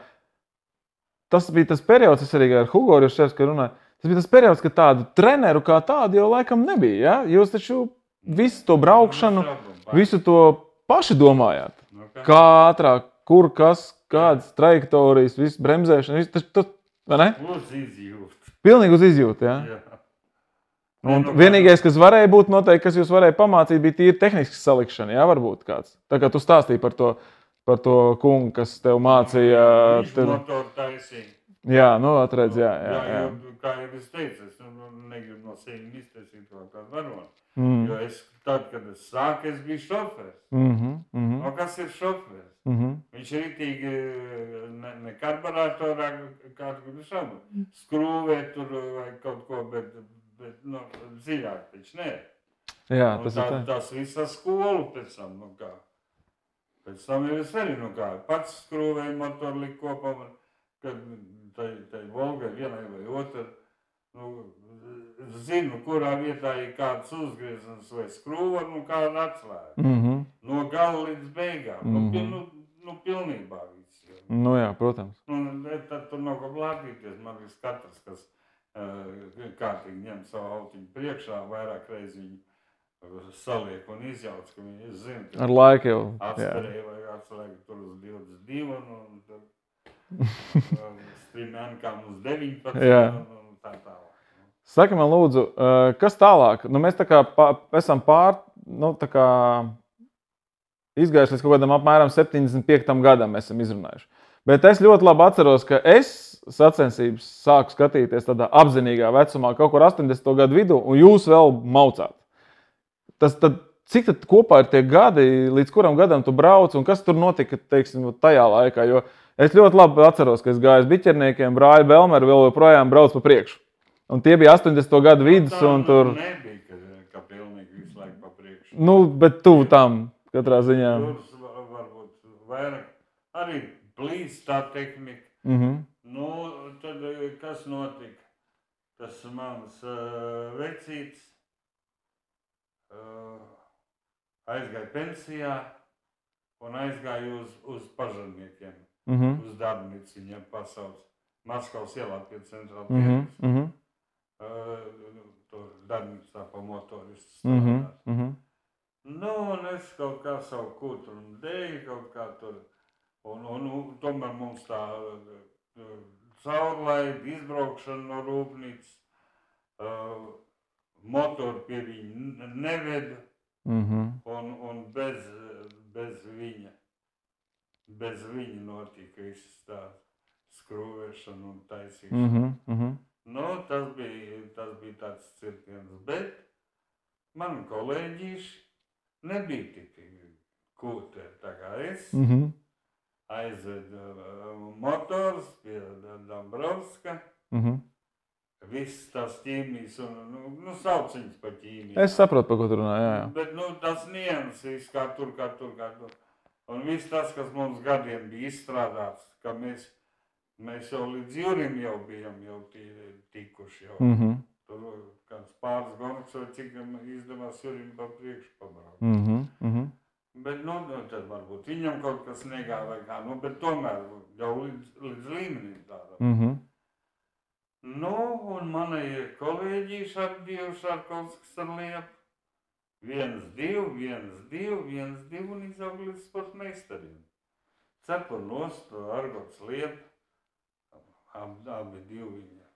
tas bija tas periods, es arī ar Hugo Riševski runāju, tas bija tas periods, kad tādu treneru kā tādu jau laikam nebija, ja? Jūs taču visu to braukšanu, visu to paši domājāt. Kā ātrāk, kur, kas, kādas trajektorijas, viss bremzēšana, viss tas. Uz izjūtu. Pilnīgi uz izjūtu, jā? Un vienīgais, kas varēja būt noteikti, kas jūs varēja pamācīt, bija tīri tehnisks salikšana, jā, varbūt kāds. Tā kā tu stāstīji par to kungu, kas tev mācīja. Viņš motoru taisīja. Jā, atredz, jā. Kā jau es teicu, es negribu no sevi iztaisīt kaut kādu varonu. Jo tad, kad es sāku, es biju šofērs. Kas ir šofērs? Viņš ritīgi ne karburātorā kādu šabu skrūvē tur vai kaut ko, bet dziļāk taču nē. Jā, tas ir tā. Tas visā skolu pēc tam, Pēc tam jau es arī, pats skrūvēju motoru liku kopā, kad tai Volgai vienai vai otrai, zinu, kurā vietā ir kāds uzgriezums vai skrūva, kāda atslēga. No gala līdz beigām. Pilnībā viss. Jā, protams. Tad tur nav ko blāpīties. Man viss katrs, kas kārtīgi ņem savu autiņu priekšā, vairāk reizi viņu saliek un izjauc, ka viņi zina. Ar laiku jau. Atstarēja vai atslēga tur uz 22 un tad strimēnkām uz 19 un tā tālāk. Saki man lūdzu, kas tālāk? Mēs tā kā esam izgājuši līdz kaut kādam apmēram 75. gadam esam izrunājuši. Bet es ļoti labi atceros, ka es sacensības sāku skatīties tādā apzinīgā vecumā, kaut kur 80. gadu vidū, un jūs vēl maucāt. Cik tad kopā ir tie gadi, līdz kuram gadam tu brauc, un kas tur notika, teiksim, tajā laikā? Jo es ļoti labi atceros, ka es gāju uz biķerniekiem, brāļa Belmeru vēl joprojām brauc pa priekšu. Un tie bija 80. gadu vidus, un tur... nebija, ka pilnīgi visu laiku pa priekšu. Nu, bet tuvu tam, katrā ziņā. Tur varbūt vairāk arī plīs tā tehnika. Nu, tad kas notika? Tas mans vecīts aizgāja pensijā un aizgāja uz pažarniekiem, uz darbnīcu viņiem pasauc. Maskavas ielā pie centrāla tirgus. Tur darbnīcā pa motoristu strādāt. Nu, un es kaut kā savu kūtru un dēju kaut kā tur. Un tomēr mums tā caurlaida, izbraukšana no rūpnīcas, motoru pie viņa neveda. Un bez viņa notika viss tā skrūvēšana un taisīšana. Nu, tas bija tāds cirkiens, bet mani kolēģīši nebija tik kūteri tā kā es. Aizved motors pie Dombrovska. Viss tās ķīmijas un sauc viņas par ķīmiju. Es saprotu, par ko tu runā, jā. Bet tas nianses kā tur. Un viss tas, kas mums gadiem bija izstrādāts, ka mēs jau līdz jūrim jau bijām tikuši. Tur kāds pāris gonks vai cik izdevās jūrim pa priekšu pabraukt. Bet, tad varbūt viņam kaut kas negāja vai kā, bet tomēr jau līdz līmenim tādam. Nu, un mani kolēģīši ar divu Šarkovskas ar liepu. 1-2, un izaug līdz sportmeistariem. Cepur nost, Argots liepa, abi divi viņa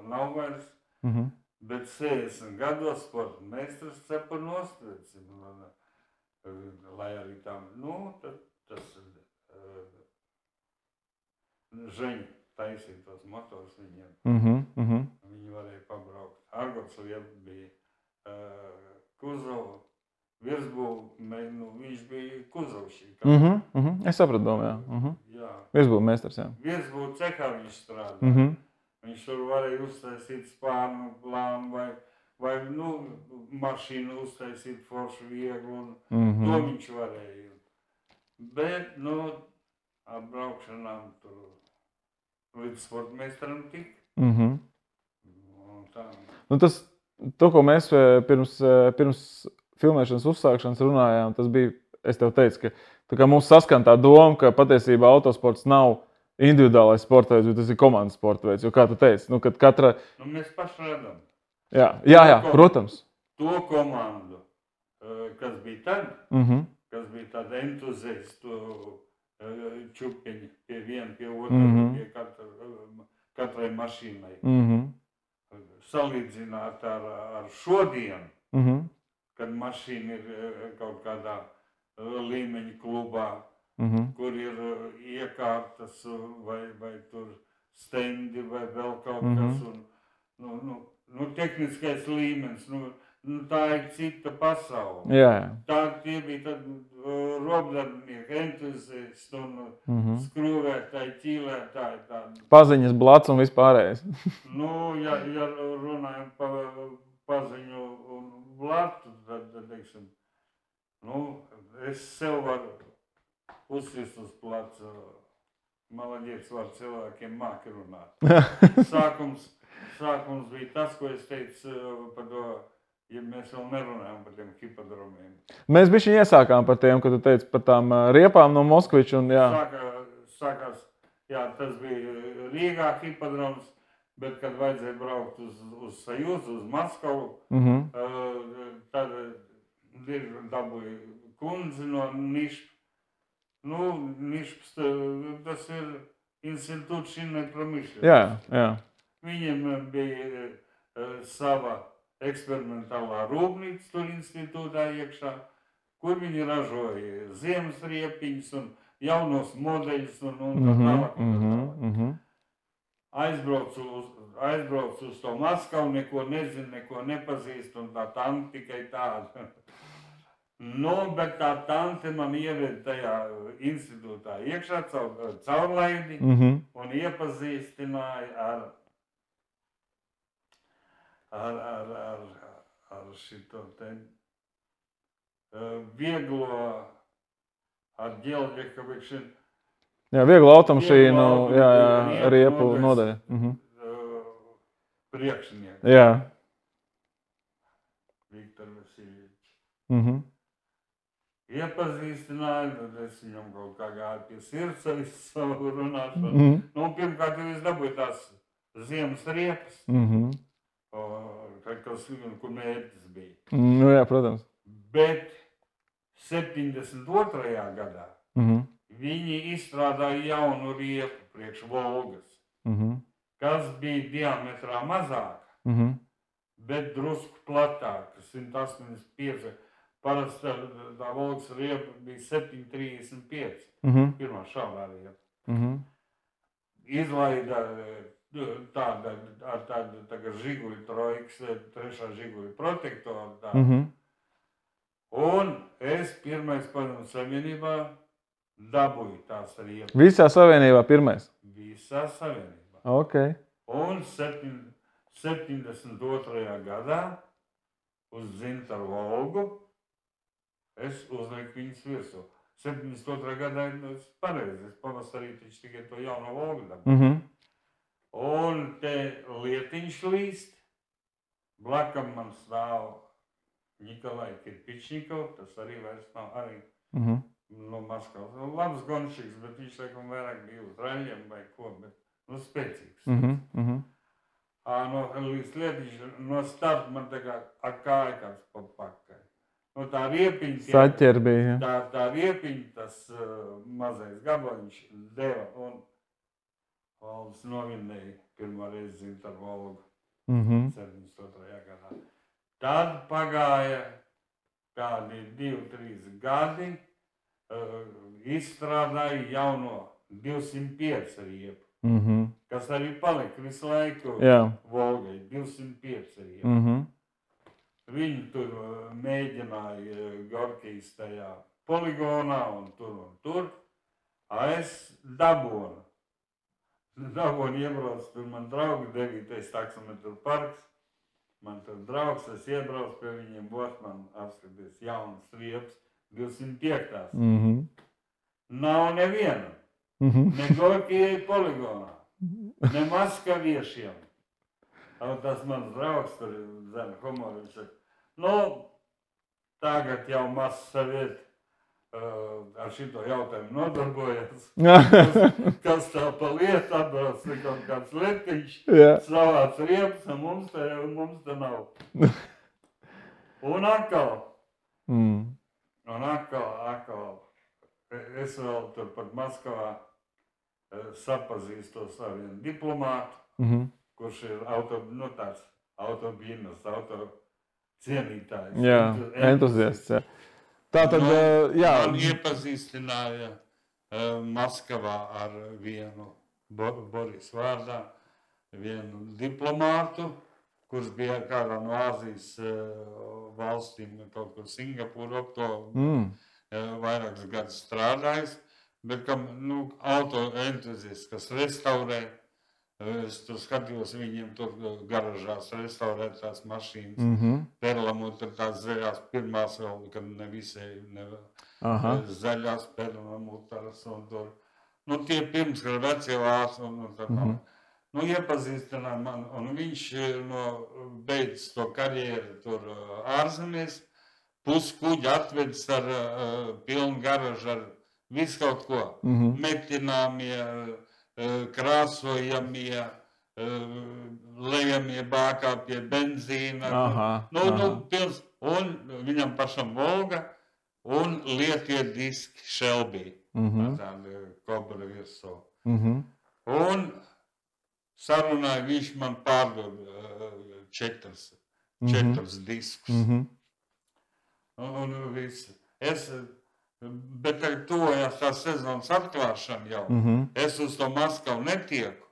nav vairs, bet 60 gados sportmeistars cepur nost, lai arī tam, tas Žeņa taisīja tos motors viņiem. Viņi varēja pabraukt. Argots liepa bija Kuzova, virsbūve, viņš bija Kuzovšī. Es sapratu domu, jā. Virsbūve meistars, jā. Virsbūve cehā viņš strādā. Viņš tur varēja uztaisīt spārnu plānu vai mašīnu uztaisīt foršu vieglu, un to viņš varēja. Bet, atbraukšanām tur līdz sportmeistaram tik. To, ko mēs pirms filmēšanas uzsākšanas runājām, tas bija, es tev teicu, ka mums saskan tā doma, ka patiesībā autosports nav individuālais sporta veids, bet tas ir komandas sporta veids. Jo, kā tu teici, kad katra... Mēs paši redzam. Jā, protams. To komandu, kas bija tad, kas bija tāda entuziastu čupiņi pie viena, pie otra, pie katrai mašīnai. Salīdzināt ar šodienu, kad mašīna ir kaut kādā līmeņa klubā, kur ir iekārtas vai tur stendi vai vēl kaut kas. Tehniskais līmenis, tā ir cita pasaule. Tie bija tad robdarbinieki, entuziasti un skrūvētāji, ķīlētāji. Paziņas, blats un vispārējais. Ja runājam par paziņu un blatu, tad, teiksim, es sev varu uzsist uz placu. Malaģiets var cilvēkiem māki runāt. Sākums bija tas, ko es teicu par to, ja mēs vēl nerunājam par tiem hipodromiem. Mēs bišķiņ iesākām par tiem, kad tu teici par tām riepām no Moskviča un jā. Sākās, tas bija Rīgā hipodroms, bet kad vajadzēja braukt uz Sajūzu, uz Maskavu, tad dabūja kundzi no Nišpa. Nišps, tas ir institūts šinai pramīšļa. Jā. Viņiem bija sava eksperimentālā rūpnīca tur institūtā iekšā, kur viņi ražoja ziemas riepiņas un jaunos modeļus un tā tālāk. aizbraucu uz to Maskavu, neko nezinu, neko nepazīstu, un tā tante tikai tāda. Nu, bet tā tante man ieved tajā institūtā iekšā caurlaidi un iepazīstināja ar šito te vieglo, ar ģeoģekavišanu. Jā, vieglo automašīnu, riepu nodaļa. Priekšnieku. Jā. Viktor Vasiljevičs. Iepazīstināju, tad es viņam kaut kā gāju pie sirds ar savu runāšanu. Nu, pirmkārt, es dabūju tās ziemas riepas, kur mērķis bija. Nu jā, protams. Bet 72. gadā viņi izstrādāja jaunu riepu priekš Volgas, kas bija diametrā mazāka, bet drusku platāka, 185. Parasti tā Volgas riepa bija 735, pirmā šādā riepa. Izlaida ar tādu žiguļu trojkas, trešā žiguļu protektoru tādu. Un es pirmais padomu savienībā dabūju tās riepas. Visā savienībā pirmais? Visā savienībā. Ok. Un 72. gadā uz Zintaru Volgu es uzlieku viņas virsū. 72. gadā es pareizi, es pavasarī tikai to jauno Volgu dabūju. Un te lietiņš līst, blakam man stāv Nikolai Kirpičnikov, tas arī vairs nav arī no Maskavas. Labs gonšīgs, bet viņš laikam vairāk bija uz raļiem vai ko, bet spēcīgs. Līdz lietiņš no starta man tā kā ar kāju kāds pa pakaļ. Nu, tā riepiņa, Saķer bija, tā riepiņa, tas mazais gabaliņš deva un Valdis novinēja pirmo reizi Zintaru Volgu 72. gadā. Tad pagāja kādi 2-3 gadi, izstrādāja jauno 205 riepu, kas arī palika visu laiku Volgai, 205 riepu. Viņi tur mēģināja Gorkijas tajā poligonā un tur. Es dabūnu iebraucu, tur man draugi 9. taksometru parks. Man tur draugs, es iebraucu pie viņiem, man apskaties jaunas riepas, 205. Nav neviena, ne Gorkijai poligonā, ne maskaviešiem. Tas mans draugs tur zina humoru, viņš saka, nu, tagad jau Mazsaviet ar šito jautājumu nodarbojas. Kas tā pa lietu atbrauc, kaut kāds letiņš, savāc riepas, mums te nav. Un atkal, es vēl tur pat Maskavā sapazīstos ar vienu diplomātu, kurš ir tāds autobīnas, cienītājs. Jā, entuziasts, jā. Tātad, man iepazīstināja Maskavā ar vienu Boris vārdā, vienu diplomātu, kurš bija kādā no Āzijas valstīm, kaut kur Singapūra, to vairākus gadus strādājis, bet kam, auto entuziasts, kas restaurē. Es tur skatījos viņiem tur garažās restaurēt tās mašīnas. Perlamut ir tās zaļās pirmās vēl, kad ne visai zaļās perlamutaras un tur. Tie pirms, kad vecie vārs un tā tā. Iepazīstināja man, un viņš beidz to karjeru tur ārzemēs, puskuģi atvedis ar pilnu garažu ar visu kaut ko. Metināmie, krāsojamie, lejamie bākā pie benzīna. Un viņam pašam Volga un lietie diski Shelby. Tādi kobra virsū. Un sarunāja, viņš man pārdod 4 diskus. Un viss. Bet tuvojās tā sezonas atklāšana jau. Es uz to Maskavu netieku.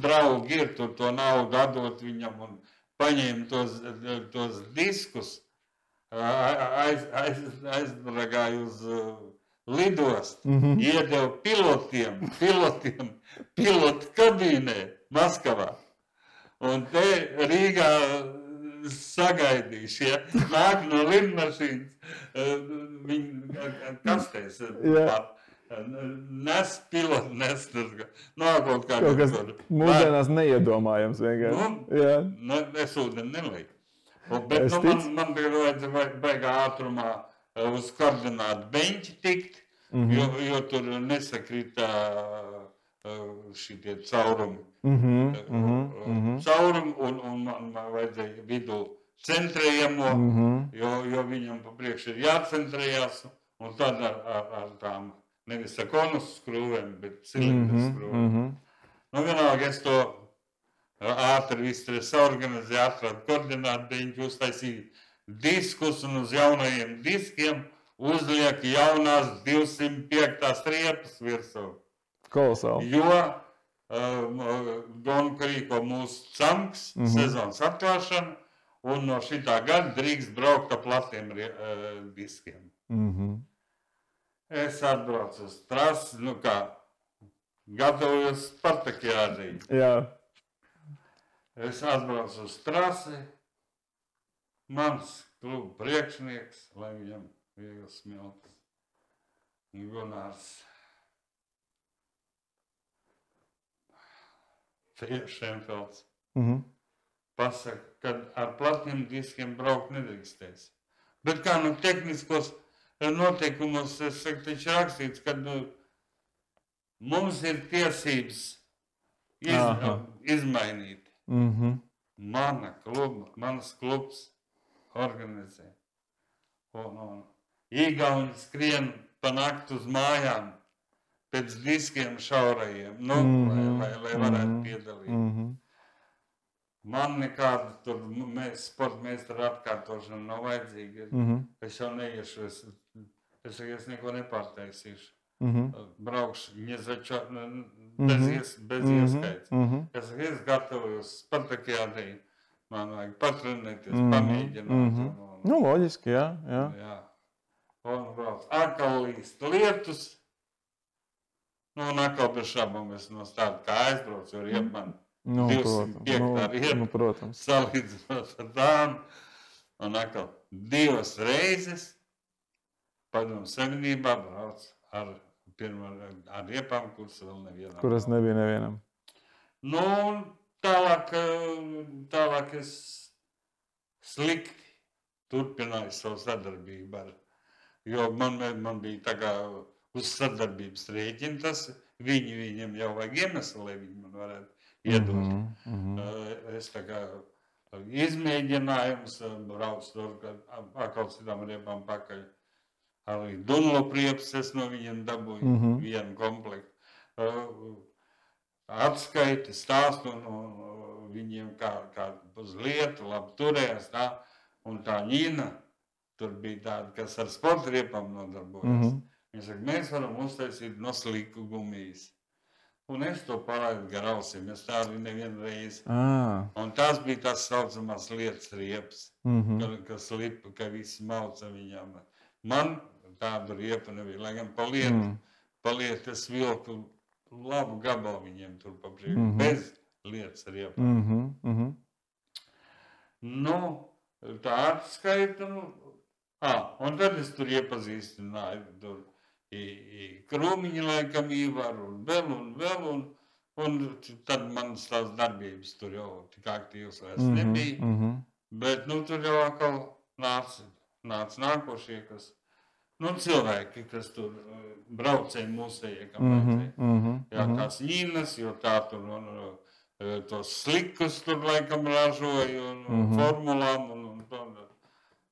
Draugi ir tur to naudu atdot viņam un paņēma tos diskus, aizbragāja uz lidostu, iedeva pilotiem pilotu kabīnē Maskavā. Un te Rīgā sagaidīšu, ja nāk no lidmašīnas, viņi kastēs nes pilotu, nes kaut kas mūsdienās neiedomājams vienkārši. Es ūdeni nelieku. Bet man bija vajadzēja baigā ātrumā uz koordinātu beņķi tikt, jo tur nesakrita šitie caurumi. Caurumi un man vajadzēja vidū centrējamo, jo viņam pa priekšu ir jācentrējās, un tad ar tām nevis ar konus skrūvēm, bet cilindru skrūvēm. Vienalga es to ātri visu saorganizēju, atradu koordinātu beņķi, uztaisīju diskus un uz jaunajiem diskiem uzliek jaunās 205. riepas virsū. Kolosāli. Jo Gonka rīko mūsu camks, sezonas atklāšana, un no šitā gada drīkst braukt ar platiem diskiem. Es atbraucu uz trasi, gatavojos Spartakiādī. Jā. Es atbraucu uz trasi, mans kluba priekšnieks, lai viņam viegls smilts, Gunārs Šenfelds. Pasaka, ka ar platiem diskiem braukt nedrīkstēs. Bet kā tehniskos noteikumos, es saku, taču rakstīts, ka mums ir tiesības izmainīt. Manas klubs organizē. Igauni skrien pa nakti uz mājām pēc diskiem šaurajiem, lai varētu piedalīt. Man nekāda tur sporta meistara atkārtošana nav vajadzīga. Es jau neiešu, es neko nepārtaisīšu. Braukšu bez ieskaits. Es gatavojos Spartakiādī, man vajag patrenēties, pamēģināt. Loģiski, jā. Un brauc atkal līst lietus. Un atkal bez šabam es no tāda kā aizbraucu, jo riep man 205. riepa, salīdzinot ar tām. Un atkal 2 reizes Padomju Savienībā brauc ar riepām, kuras vēl nevienam. Kuras nebija nevienam. Tālāk es slikti turpināju savu sadarbību jo man bija tā kā uz sadarbības rēķina tas, viņam jau vajag iemeslu, lai viņi man varētu iedot. Es tā kā izmēģinājums, braucu tur, atkal citām riepām pakaļ. Arī Dunlop riepas es no viņiem dabūju vienu komplektu. Atskaiti, stāstu no viņiem, kā uz lietu, labi turējās tā. Un tā Ņina, tur bija tāda, kas ar sporta riepām nodarbojas. Viņa saka, mēs varam uztaisīt no sliku gumijas. Un es to palaidu gar ausīm, es tā arī nevienu reizi. Un tās bija tās saucamās lietas riepas, kas lipa, ka visi mauca viņām. Man tādu riepu nebija, lai gan pa lietu es vilku labu gabalu viņiem tur pa priekšu, bez lietas riepām. Tā atskaita, un tad es tur iepazīstināju, tur Krūmiņa laikam Īvaru un vēl, un tad manas tās darbības tur jau tik aktīvas vairs nebija, bet tur jau atkal nāca nākošie, kas, cilvēki, kas tur braucēja mūsējie, kam vajadzēja. Jā, tās Ņinas, jo tā tur tos slikus tur laikam ražoja un formulām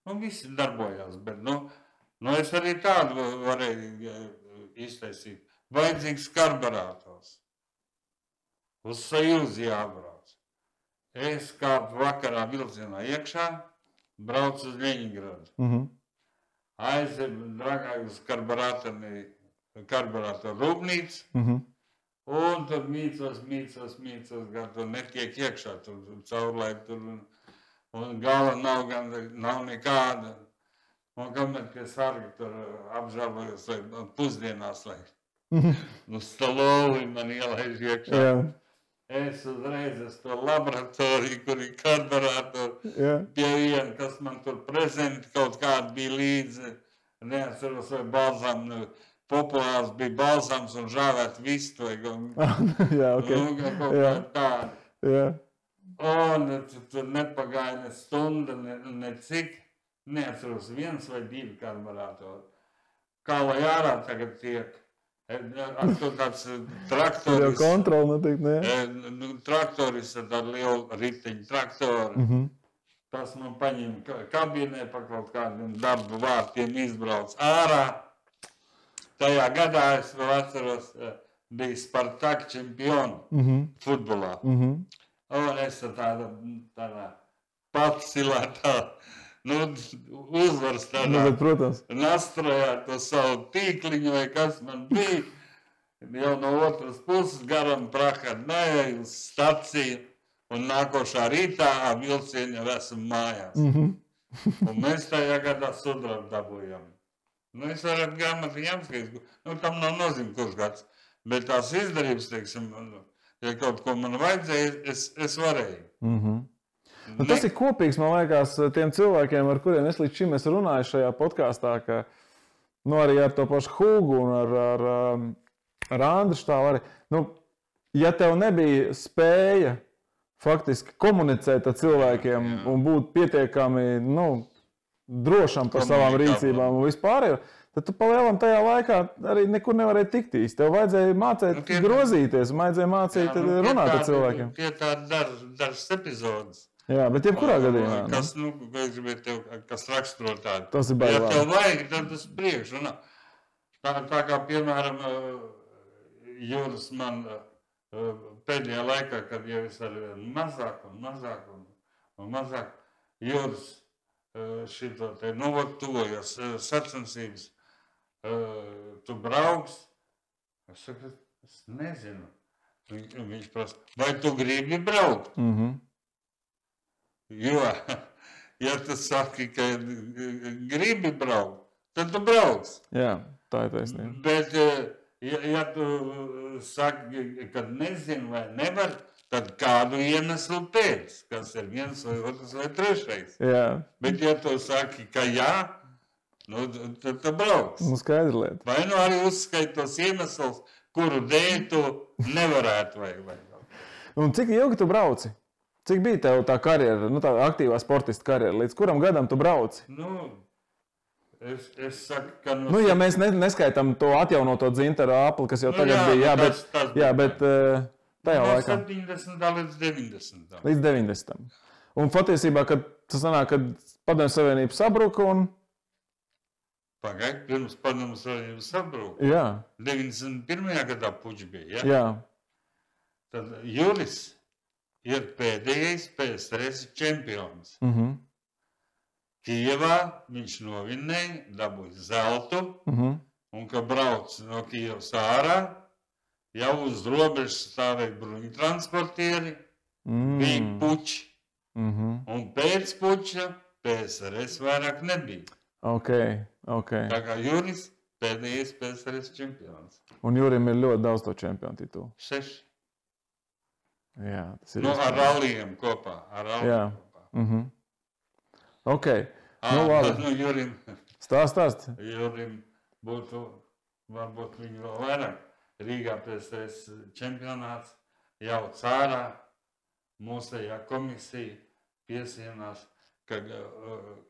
un visi darbojās, bet es arī tādu varēju iztaisīt. Vajadzīgs karburators. Uz Sajūzi jābrauc. Es kāpu vakarā vilcienā iekšā, braucu uz Ļeņingradu. Aizēju dragāju uz karburatoru rūpnīcu, Un tur mīcos, gan tur netiek iekšā, tur caurlaid, tur, un gala nav nekāda. Un kamēr pie sarga tur apžēlojos, vai pusdienās, lai stalovi man ielaiž iekšā. Jā. Es uzreiz to laboratoriju, kur ir karburātori, pie viena, kas man tur prezenti kaut kādi bija līdzi. Neatceros, vai balzām, populārs bija balzams un žāvēt vistu. Jā, ok. Kaut kā tādi. Jā. Un tur nepagāja ne stunda, ne cik. Neatceros, 1 vai 2 karburātori. Kā lai ārā tagad tiek? Tur tāds traktoris. Jau kontroli notiek, ne? Traktoris ar tādu lielu riteņu traktoru. Tas man paņēma kabīnē pa kaut kādiem darba vārtiem izbrauc ārā. Tajā gadā es vēl atceros, bija Spartak čempioni futbolā. Un es tādā patsilētā, uzvaras tādā nastrojā to savu tīkliņu, vai kas man bija. Jau no otras puses garam prakāt neej uz staciju, un nākošā rītā vilcieni jau esam mājās. Un mēs tajā gadā sudrabu dabūjām. Es varētu grāmatu jāmskatīt, tam nav nozīme kurš gads, bet tās izdarības, teiksim, ja kaut ko man vajadzēja, es varēju. Tas ir kopīgs, man liekas, tiem cilvēkiem, ar kuriem es līdz šim esmu runājis šajā podkāstā, ka arī ar to pašu Hugu un ar Andru Štālu arī. Ja tev nebija spēja faktiski komunicēt ar cilvēkiem un būt pietiekami drošam par savām rīcībām un vispārējo, tad tu palielam tajā laikā arī nekur nevarēji tikt īsti. Tev vajadzēja mācīt grozīties, vajadzēja mācīt runāt ar cilvēkiem. Tie tādi dažas epizodes. Jā, bet jebkurā gadījumā. Kas raksturo tādu. Tas ir baigi. Ja tev vajag, tad tas priekš. Tā kā, piemēram, Juris man pēdējā laikā, kad jau es arī mazāk, Juris šito te tuvojas sacensības, tu brauks. Es saku, es nezinu. Viņš prasa, vai tu gribi braukt? Jo, ja tu saki, ka gribi braukt, tad tu brauks. Jā, tā ir taisnība. Bet, ja tu saki, ka nezinu vai nevar, tad kādu iemeslu pēc, kas ir 1 vai 2 vai 3. Jā. Bet, ja tu saki, ka jā, tad tu brauks. Skaidra lieta. Vai arī uzskait tos iemeslus, kuru dēļ tu nevarētu vai. Un cik ilgi tu brauci? Cik bija tev tā karjera, tā aktīvā sportista karjera? Līdz kuram gadam tu brauci? Es saku, ka... ja mēs neskaitām to atjaunoto dzintaru apli, kas jau tagad bija, bet tajā laikā. No 70. līdz 90. Līdz 90. Un patiesībā, kad tas sanāk, kad Padomju Savienība sabruka un... Pagaid, pirms Padomju Savienība sabruka. Jā. 91. gadā puķi bija, ja? Jā. Tad Juris ir pēdējais PSRS čempions. Kijevā viņš novinnēja, dabūja zeltu, un, kad brauc no Kijevas ārā, jau uz robežas stāvēja bruņtransportieri, bija puķi. Un pēc puķa PSRS vairāk nebija. Ok. Tā kā Juris pēdējais PSRS čempions. Un Jurim ir ļoti daudz to čempionu titulu. 6. Jā, tas ir. Ar ralliem kopā. Jā. Ok. Labi. Jurim. Stāst. Jurim būtu, varbūt viņu vēl vairāk. Rīgā PSRS čempionāts jauc ārā. Mūsējā komisija piesienās, ka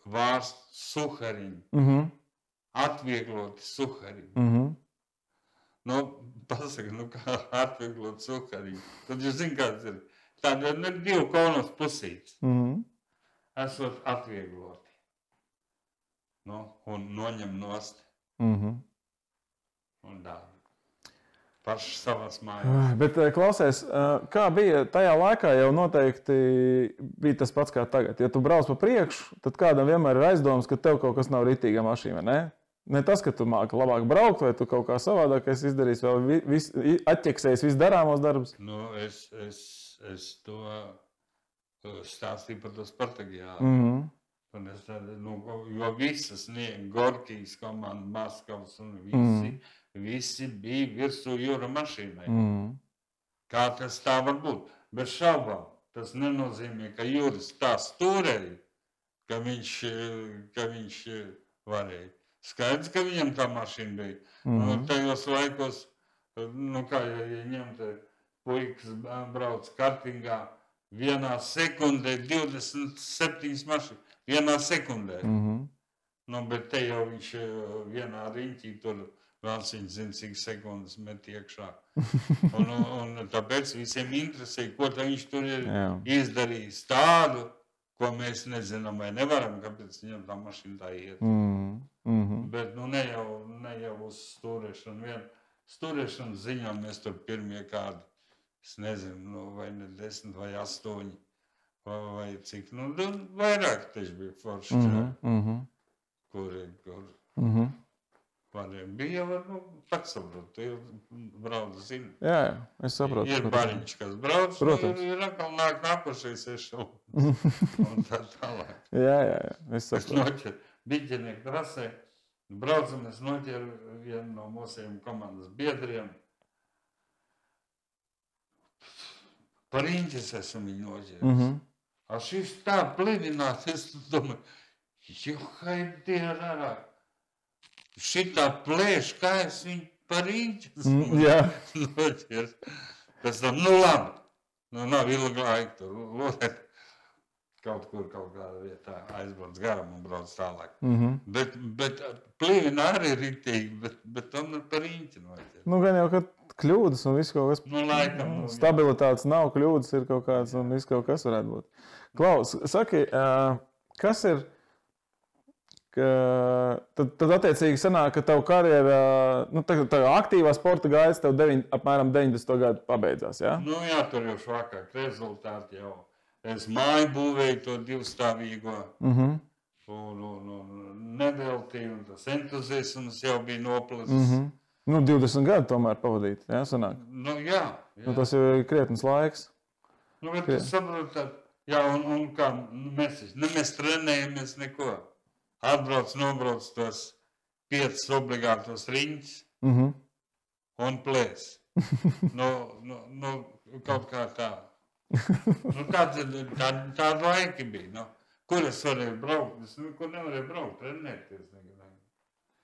vārst suhariņu. Atviegloti suhariņu. Pasaka, kā atvieglot suhariņu. Tad jūs zināt, kāds ir. Tāda ir 2 konos pusītes. Esot atviegloti. Un noņem nost. Un dāvi. Paši savās mājās. Bet klausies, kā bija tajā laikā, jau noteikti bija tas pats kā tagad. Ja tu brauc pa priekšu, tad kādam vienmēr ir aizdoms, ka tev kaut kas nav ritīga mašīna, ne? Ne tas, ka tu māki labāk braukt, vai tu kaut kā savādāk izdarīsi, vēl atķeksēsi visu darāmos darbus. Nu, es to stāstīju par to Spartagiādu. Mm-hmm. Jo visas Gorkijas komanda, Maskavas un visi bija virsū jūra mašīnai. Kā tas tā var būt? Bez šaubām. Tas nenozīmē, ka jūras tā stūrēja, ka viņš varēja. Skaidrs, ka viņam tā mašīna bija. Tajos laikos, kā ja ņemt puikas brauc kartingā, vienā sekundē 27 mašīnas. Vienā sekundē. Bet te jau viņš vienā riņķī tur vēl viņš zina, cik sekundes met iekšā. Un tāpēc visiem interesē, ko viņš tur ir izdarījis tādu, ko mēs nezinām vai nevaram, kāpēc viņam tā mašīna tā iet. Bet ne jau uz stūrēšanu. Stūrēšanu ziņā mēs tur pirmie kādi, es nezinu, vai ne 10 vai 8. Vai cik, vairāk taču bija forši čāri, kur variem bija jau, pats saprot, tu jau brauc, zini. Jā, es saprotu. Ir bariņš, kas brauc, ir atkal nākošais ešalons un tā tālāk. Jā, es saprotu. Es noķeru biķenieku trasē, braucam, es noķeru vienu no mūsiem komandas biedriem. Par riņķis esmu viņu noķeris. A šis tā plinās, es domāju, haidie rārā. Šitā plēš, kā es viņu par riņķis noķers. Pēc tam, labi, nav ilgi laika tur lodēt. Kaut kādā vietā aizbrauc garam un brauc tālāk. Bet plīna arī riktīgi, bet tomēr par riņķi noķers. Gan jau, ka kļūdas un viss kaut kas. Laikam. Stabilitātes nav, kļūdas ir kaut kāds un viss kaut kas varētu būt. Klaus, saki, kas ir, tad attiecīgi sanāk, ka tavu karjerā, tā aktīvā sporta gaitas tev apmēram 90. gadu pabeidzās, jā? Jā, tur jau švakāk rezultāti jau. Es māju būvēju to divstāvīgo un neveltīju, un tas entuziasms jau bija noplacis. 20 gadu tomēr pavadīt, jā, sanāk? Jā. Tas jau ir krietnes laiks. Bet tu saproti, jā, un kā mēs trenējamies neko. Nobrauc tos 5 obligātos riņķus un plēs. Kaut kā tā. Tāda laika bija. Kur es varēju braukt? Es nekur nevarēju braukt, trenēties.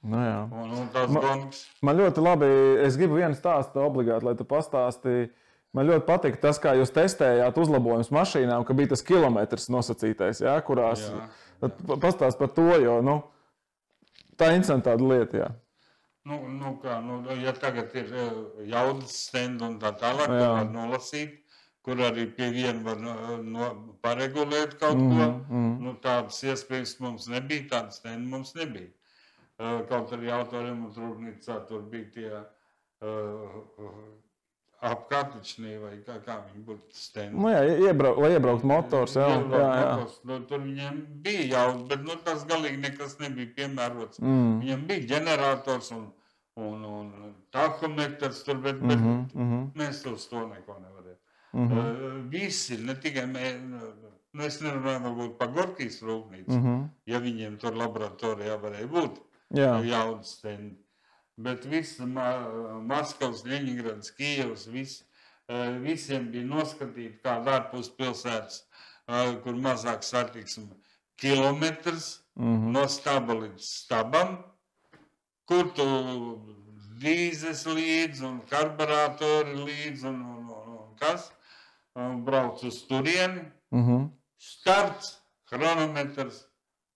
Un tās gongas. Man ļoti labi, es gribu vienu stāstu obligāti, lai tu pastāstīji. Man ļoti patīk tas, kā jūs testējāt uzlabojumus mašīnām, ka bija tas kilometrs nosacītais, jā, kurās. Pastāst par to, jo tā ir interesanta lieta. Jā. Ja tagad ir jaudas stendi un tā tālāk, ko var nolasīt, kur arī pie viena var paregulēt kaut ko, tādas iespējas mums nebija, tādas stendi mums nebija. Kaut arī autoremontrūpnīcā tur bija tie apkārtničnī vai kā viņi būtu stendi. Lai iebraukt motors. Tur viņiem bija jaudas, bet tas galīgi nekas nebija piemērots. Viņiem bija ģenerators un tahometrs tur, bet mēs uz to neko nevarējām. Visi, ne tikai es nerunāju varbūt par Gorkijas rūpnīcu, ja viņiem tur laboratorijā varēja būt jaudas stendi. Bet visi Maskavas, Ļeņingrads, Kijevs, visiem bija noskatīti kāda ārpus pilsētas, kur mazāk satiksme kilometrs no staba līdz stabam, kur tu dīzes līdz un karburatori līdz un kas, brauc uz turieni, starts, chronometrs,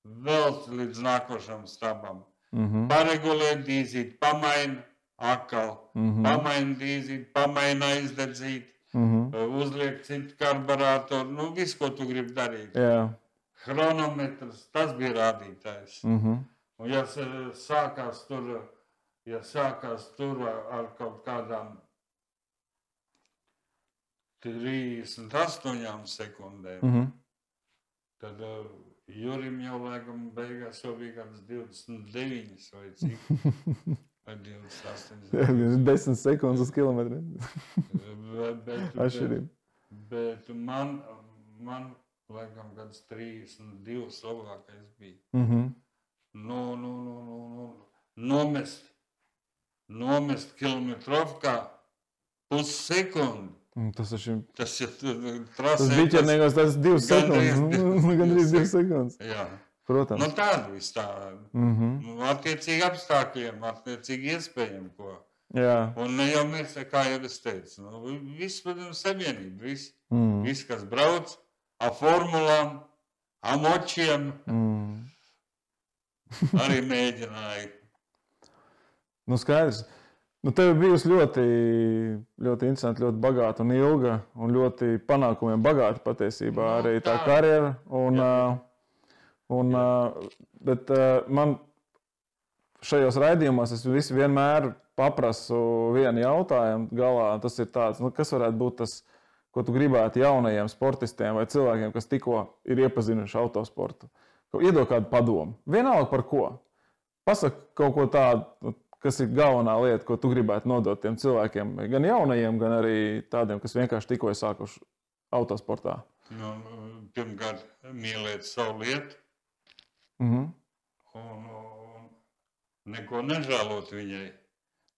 vēl līdz nākošam stabam. Paregulēt dīzīt, pamaina atkal, pamaina dīzīt, pamaina aizdedzīt, uzliek citu karburātoru, visu, ko tu gribi darīt. Chronometrs, tas bija rādītājs. Un ja sākās tur ar kaut kādām 38 sekundēm, tad Jurim jau laikam beigās jau bija kāds 29 vai cik. Vai 28. 10 sekundes uz kilometru. Atšķirība. Bet man laikam kāds 32 labākais bija. Nomest kilometrovkā pussekundi. Tas ir trasē. Tas 2 sekundes. Gandrīz 2 sekundes. Jā. Protams. Nu tāda viss tā. Attiecīgi apstākļiem, attiecīgi iespējami, ko. Jā. Un ne jau mēs, kā jau es teicu, viss, protams, savienība, viss, kas brauc, formulām, močiem, arī mēģināja. Nu skaidrs. Nu, tev ir bijusi ļoti interesanti, ļoti bagāta un ilga un ļoti panākumiem bagāta patiesībā arī tā karjera. Bet man šajos raidījumos es vienmēr paprasu vienu jautājumu galā. Tas ir tāds, kas varētu būt tas, ko tu gribētu jaunajiem sportistiem vai cilvēkiem, kas tikko ir iepazinuši autosportu. Iedod kādu padomu. Vienalga par ko. Pasaka kaut ko tādu, kas ir galvenā lieta, ko tu gribētu nodot tiem cilvēkiem, gan jaunajiem, gan arī tādiem, kas vienkārši tikko ir sākuši autosportā. Pirmkārt, mīlēt savu lietu. Un neko nežēlot viņai.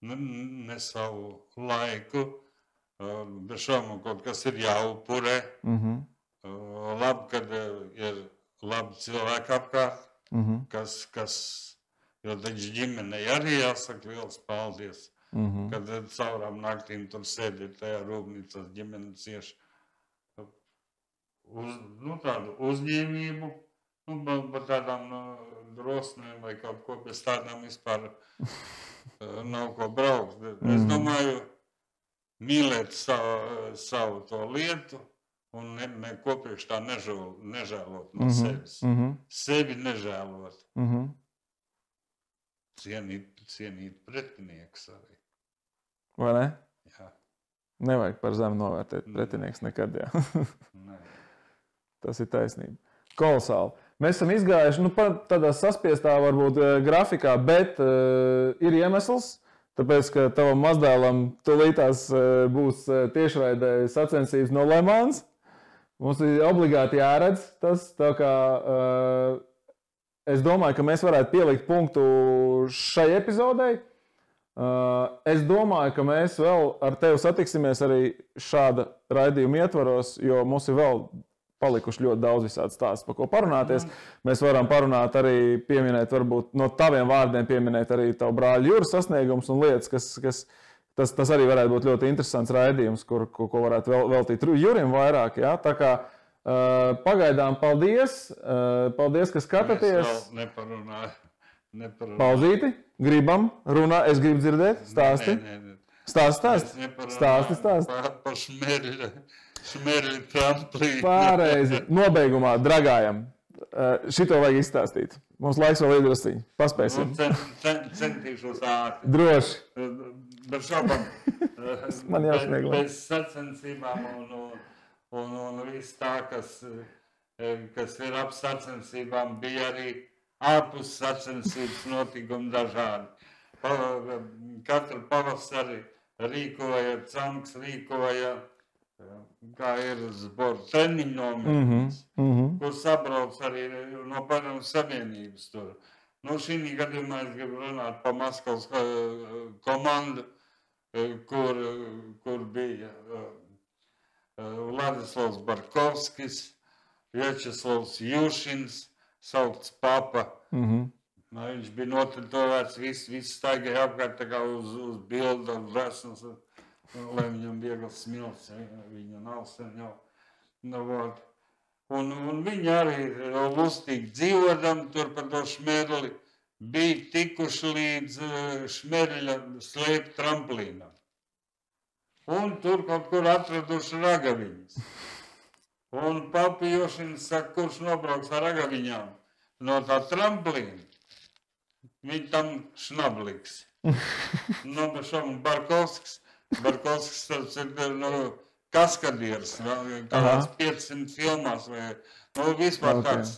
Ne savu laiku. Bez šaubām kaut kas ir jāupurē. Labi, kad ir labi cilvēki apkārt, kas jo taču ģimenei arī jāsaka liels paldies, kad caurām naktīm tur sēdi tajā rūpnīcas ģimene cieši tādu uzņēmību, par tādām drosmēm vai kaut ko bez tādām vispār nav ko braukt. Es domāju, mīlēt savu to lietu un neko priekš tā nežēlot no sevis. Sevi nežēlot. Cienīt pretinieks arī. Vai ne? Jā. Nevajag par zemu novērtēt pretinieks nekad, jā. Tas ir taisnība. Kolosāli. Mēs esam izgājuši, tādā saspiestā varbūt grafikā, bet ir iemesls, tāpēc, ka tavam mazdēlam tūlītās būs tiešraidē sacensības no Le Mans. Mums ir obligāti jāredz tas, tā kā es domāju, ka mēs varētu pielikt punktu šai epizodei. Es domāju, ka mēs vēl ar tevi satiksimies arī šāda raidījuma ietvaros, jo mums ir vēl palikuši ļoti daudz visādi stāstu, par ko parunāties. Mēs varam parunāt arī, pieminēt, varbūt no taviem vārdiem pieminēt arī tavu brāļu Juras sasniegumus un lietas, tas arī varētu būt ļoti interesants raidījums, ko varētu veltīt Jurim vairāk. Ja? Tā kā pagaidām paldies, ka skatāties. Es vēl neparunāju. Pauzīti, gribam, runā, es gribu dzirdēt, stāsti. Stāsti. Par šmerļu tramplīnu. Pārreizi, nobeigumā, dragājam, šito vajag izstāstīt. Mums laiks vēl iedrusciņi, paspēsim. Centīšos ātri. Droši. Bet šaubam, man jāsniegla. Bez sacensībām un viss tā, kas ir ap sacensībām, bija arī ārpus sacensības notikumi dažādi. Katru pavasari rīkoja, Canks rīkoja, kā ir sporta treniņu nometnes, kur sabrauc arī no Padomju Savienības tur. Šī gadījumā es gribu runāt par Maskavas komandu, kur bija Vladislavs Barkovskis, Vjačeslavs Jušins, saukts Papa. Viņš bija notritovēts, viss staigāja apkārt tā kā uz bildu, resnas, lai viņam viegls smilts, viņa nav sen jau. Un viņi arī lustīgi dzīvodam tur par to šmerli, bija tikuši līdz šmerļa slēpt tramplīnam. Un tur kaut kur atraduši ragaviņas. Un Papa Jošins saka, kurš nobrauks ar ragaviņām no tā tramplīna, viņi tam šnabliks. Barkovskis tas ir kaskadieris, kāds 500 filmās vai Nu, vispār tāds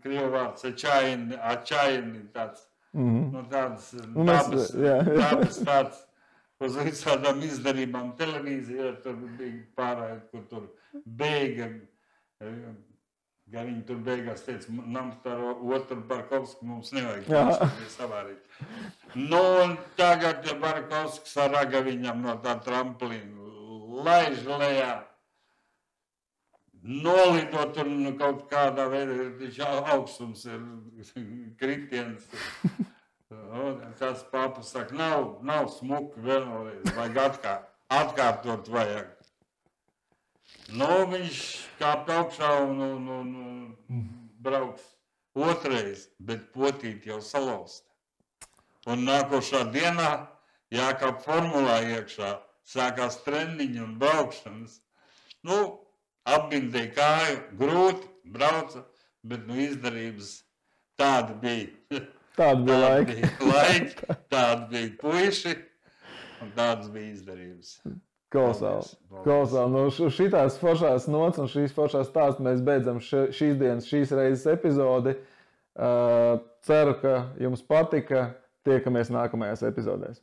krievu vārds ačaini tāds. Nu, tāds dabas tāds uz visādām izdarībām televīzijā. Tur bija pārējot, kur tur beiga. Ja viņi tur beigās teica, nam par otru Barkovsku mums nevajag. Viņš tur bija savārīt. Nu, un tagad Barkovskis ar Ragaviņam no tā tramplīna laiž lejā. Nolidot un kaut kādā veidā augstums ir kritiens. Tas papa saka, nav smuki vēlreiz, vajag atkārtot vajag. Nu, viņš kāp augšā un brauks otrais, bet potīt jau salausta. Un nākošā dienā jākāp formulā iekšā, sākās trendiņi un braukšanas. Nu, apbindēja kāju, grūti, brauca, bet izdarības tāda bija. Tāda bija laiki, tāda bija puiši un tādas bija izdarības. Kolosāli. Nu, šitās foršās nots un šīs foršās stāsts mēs beidzam šīs reizes epizodi. Ceru, ka jums patika. Tiekamies nākamajās epizodēs.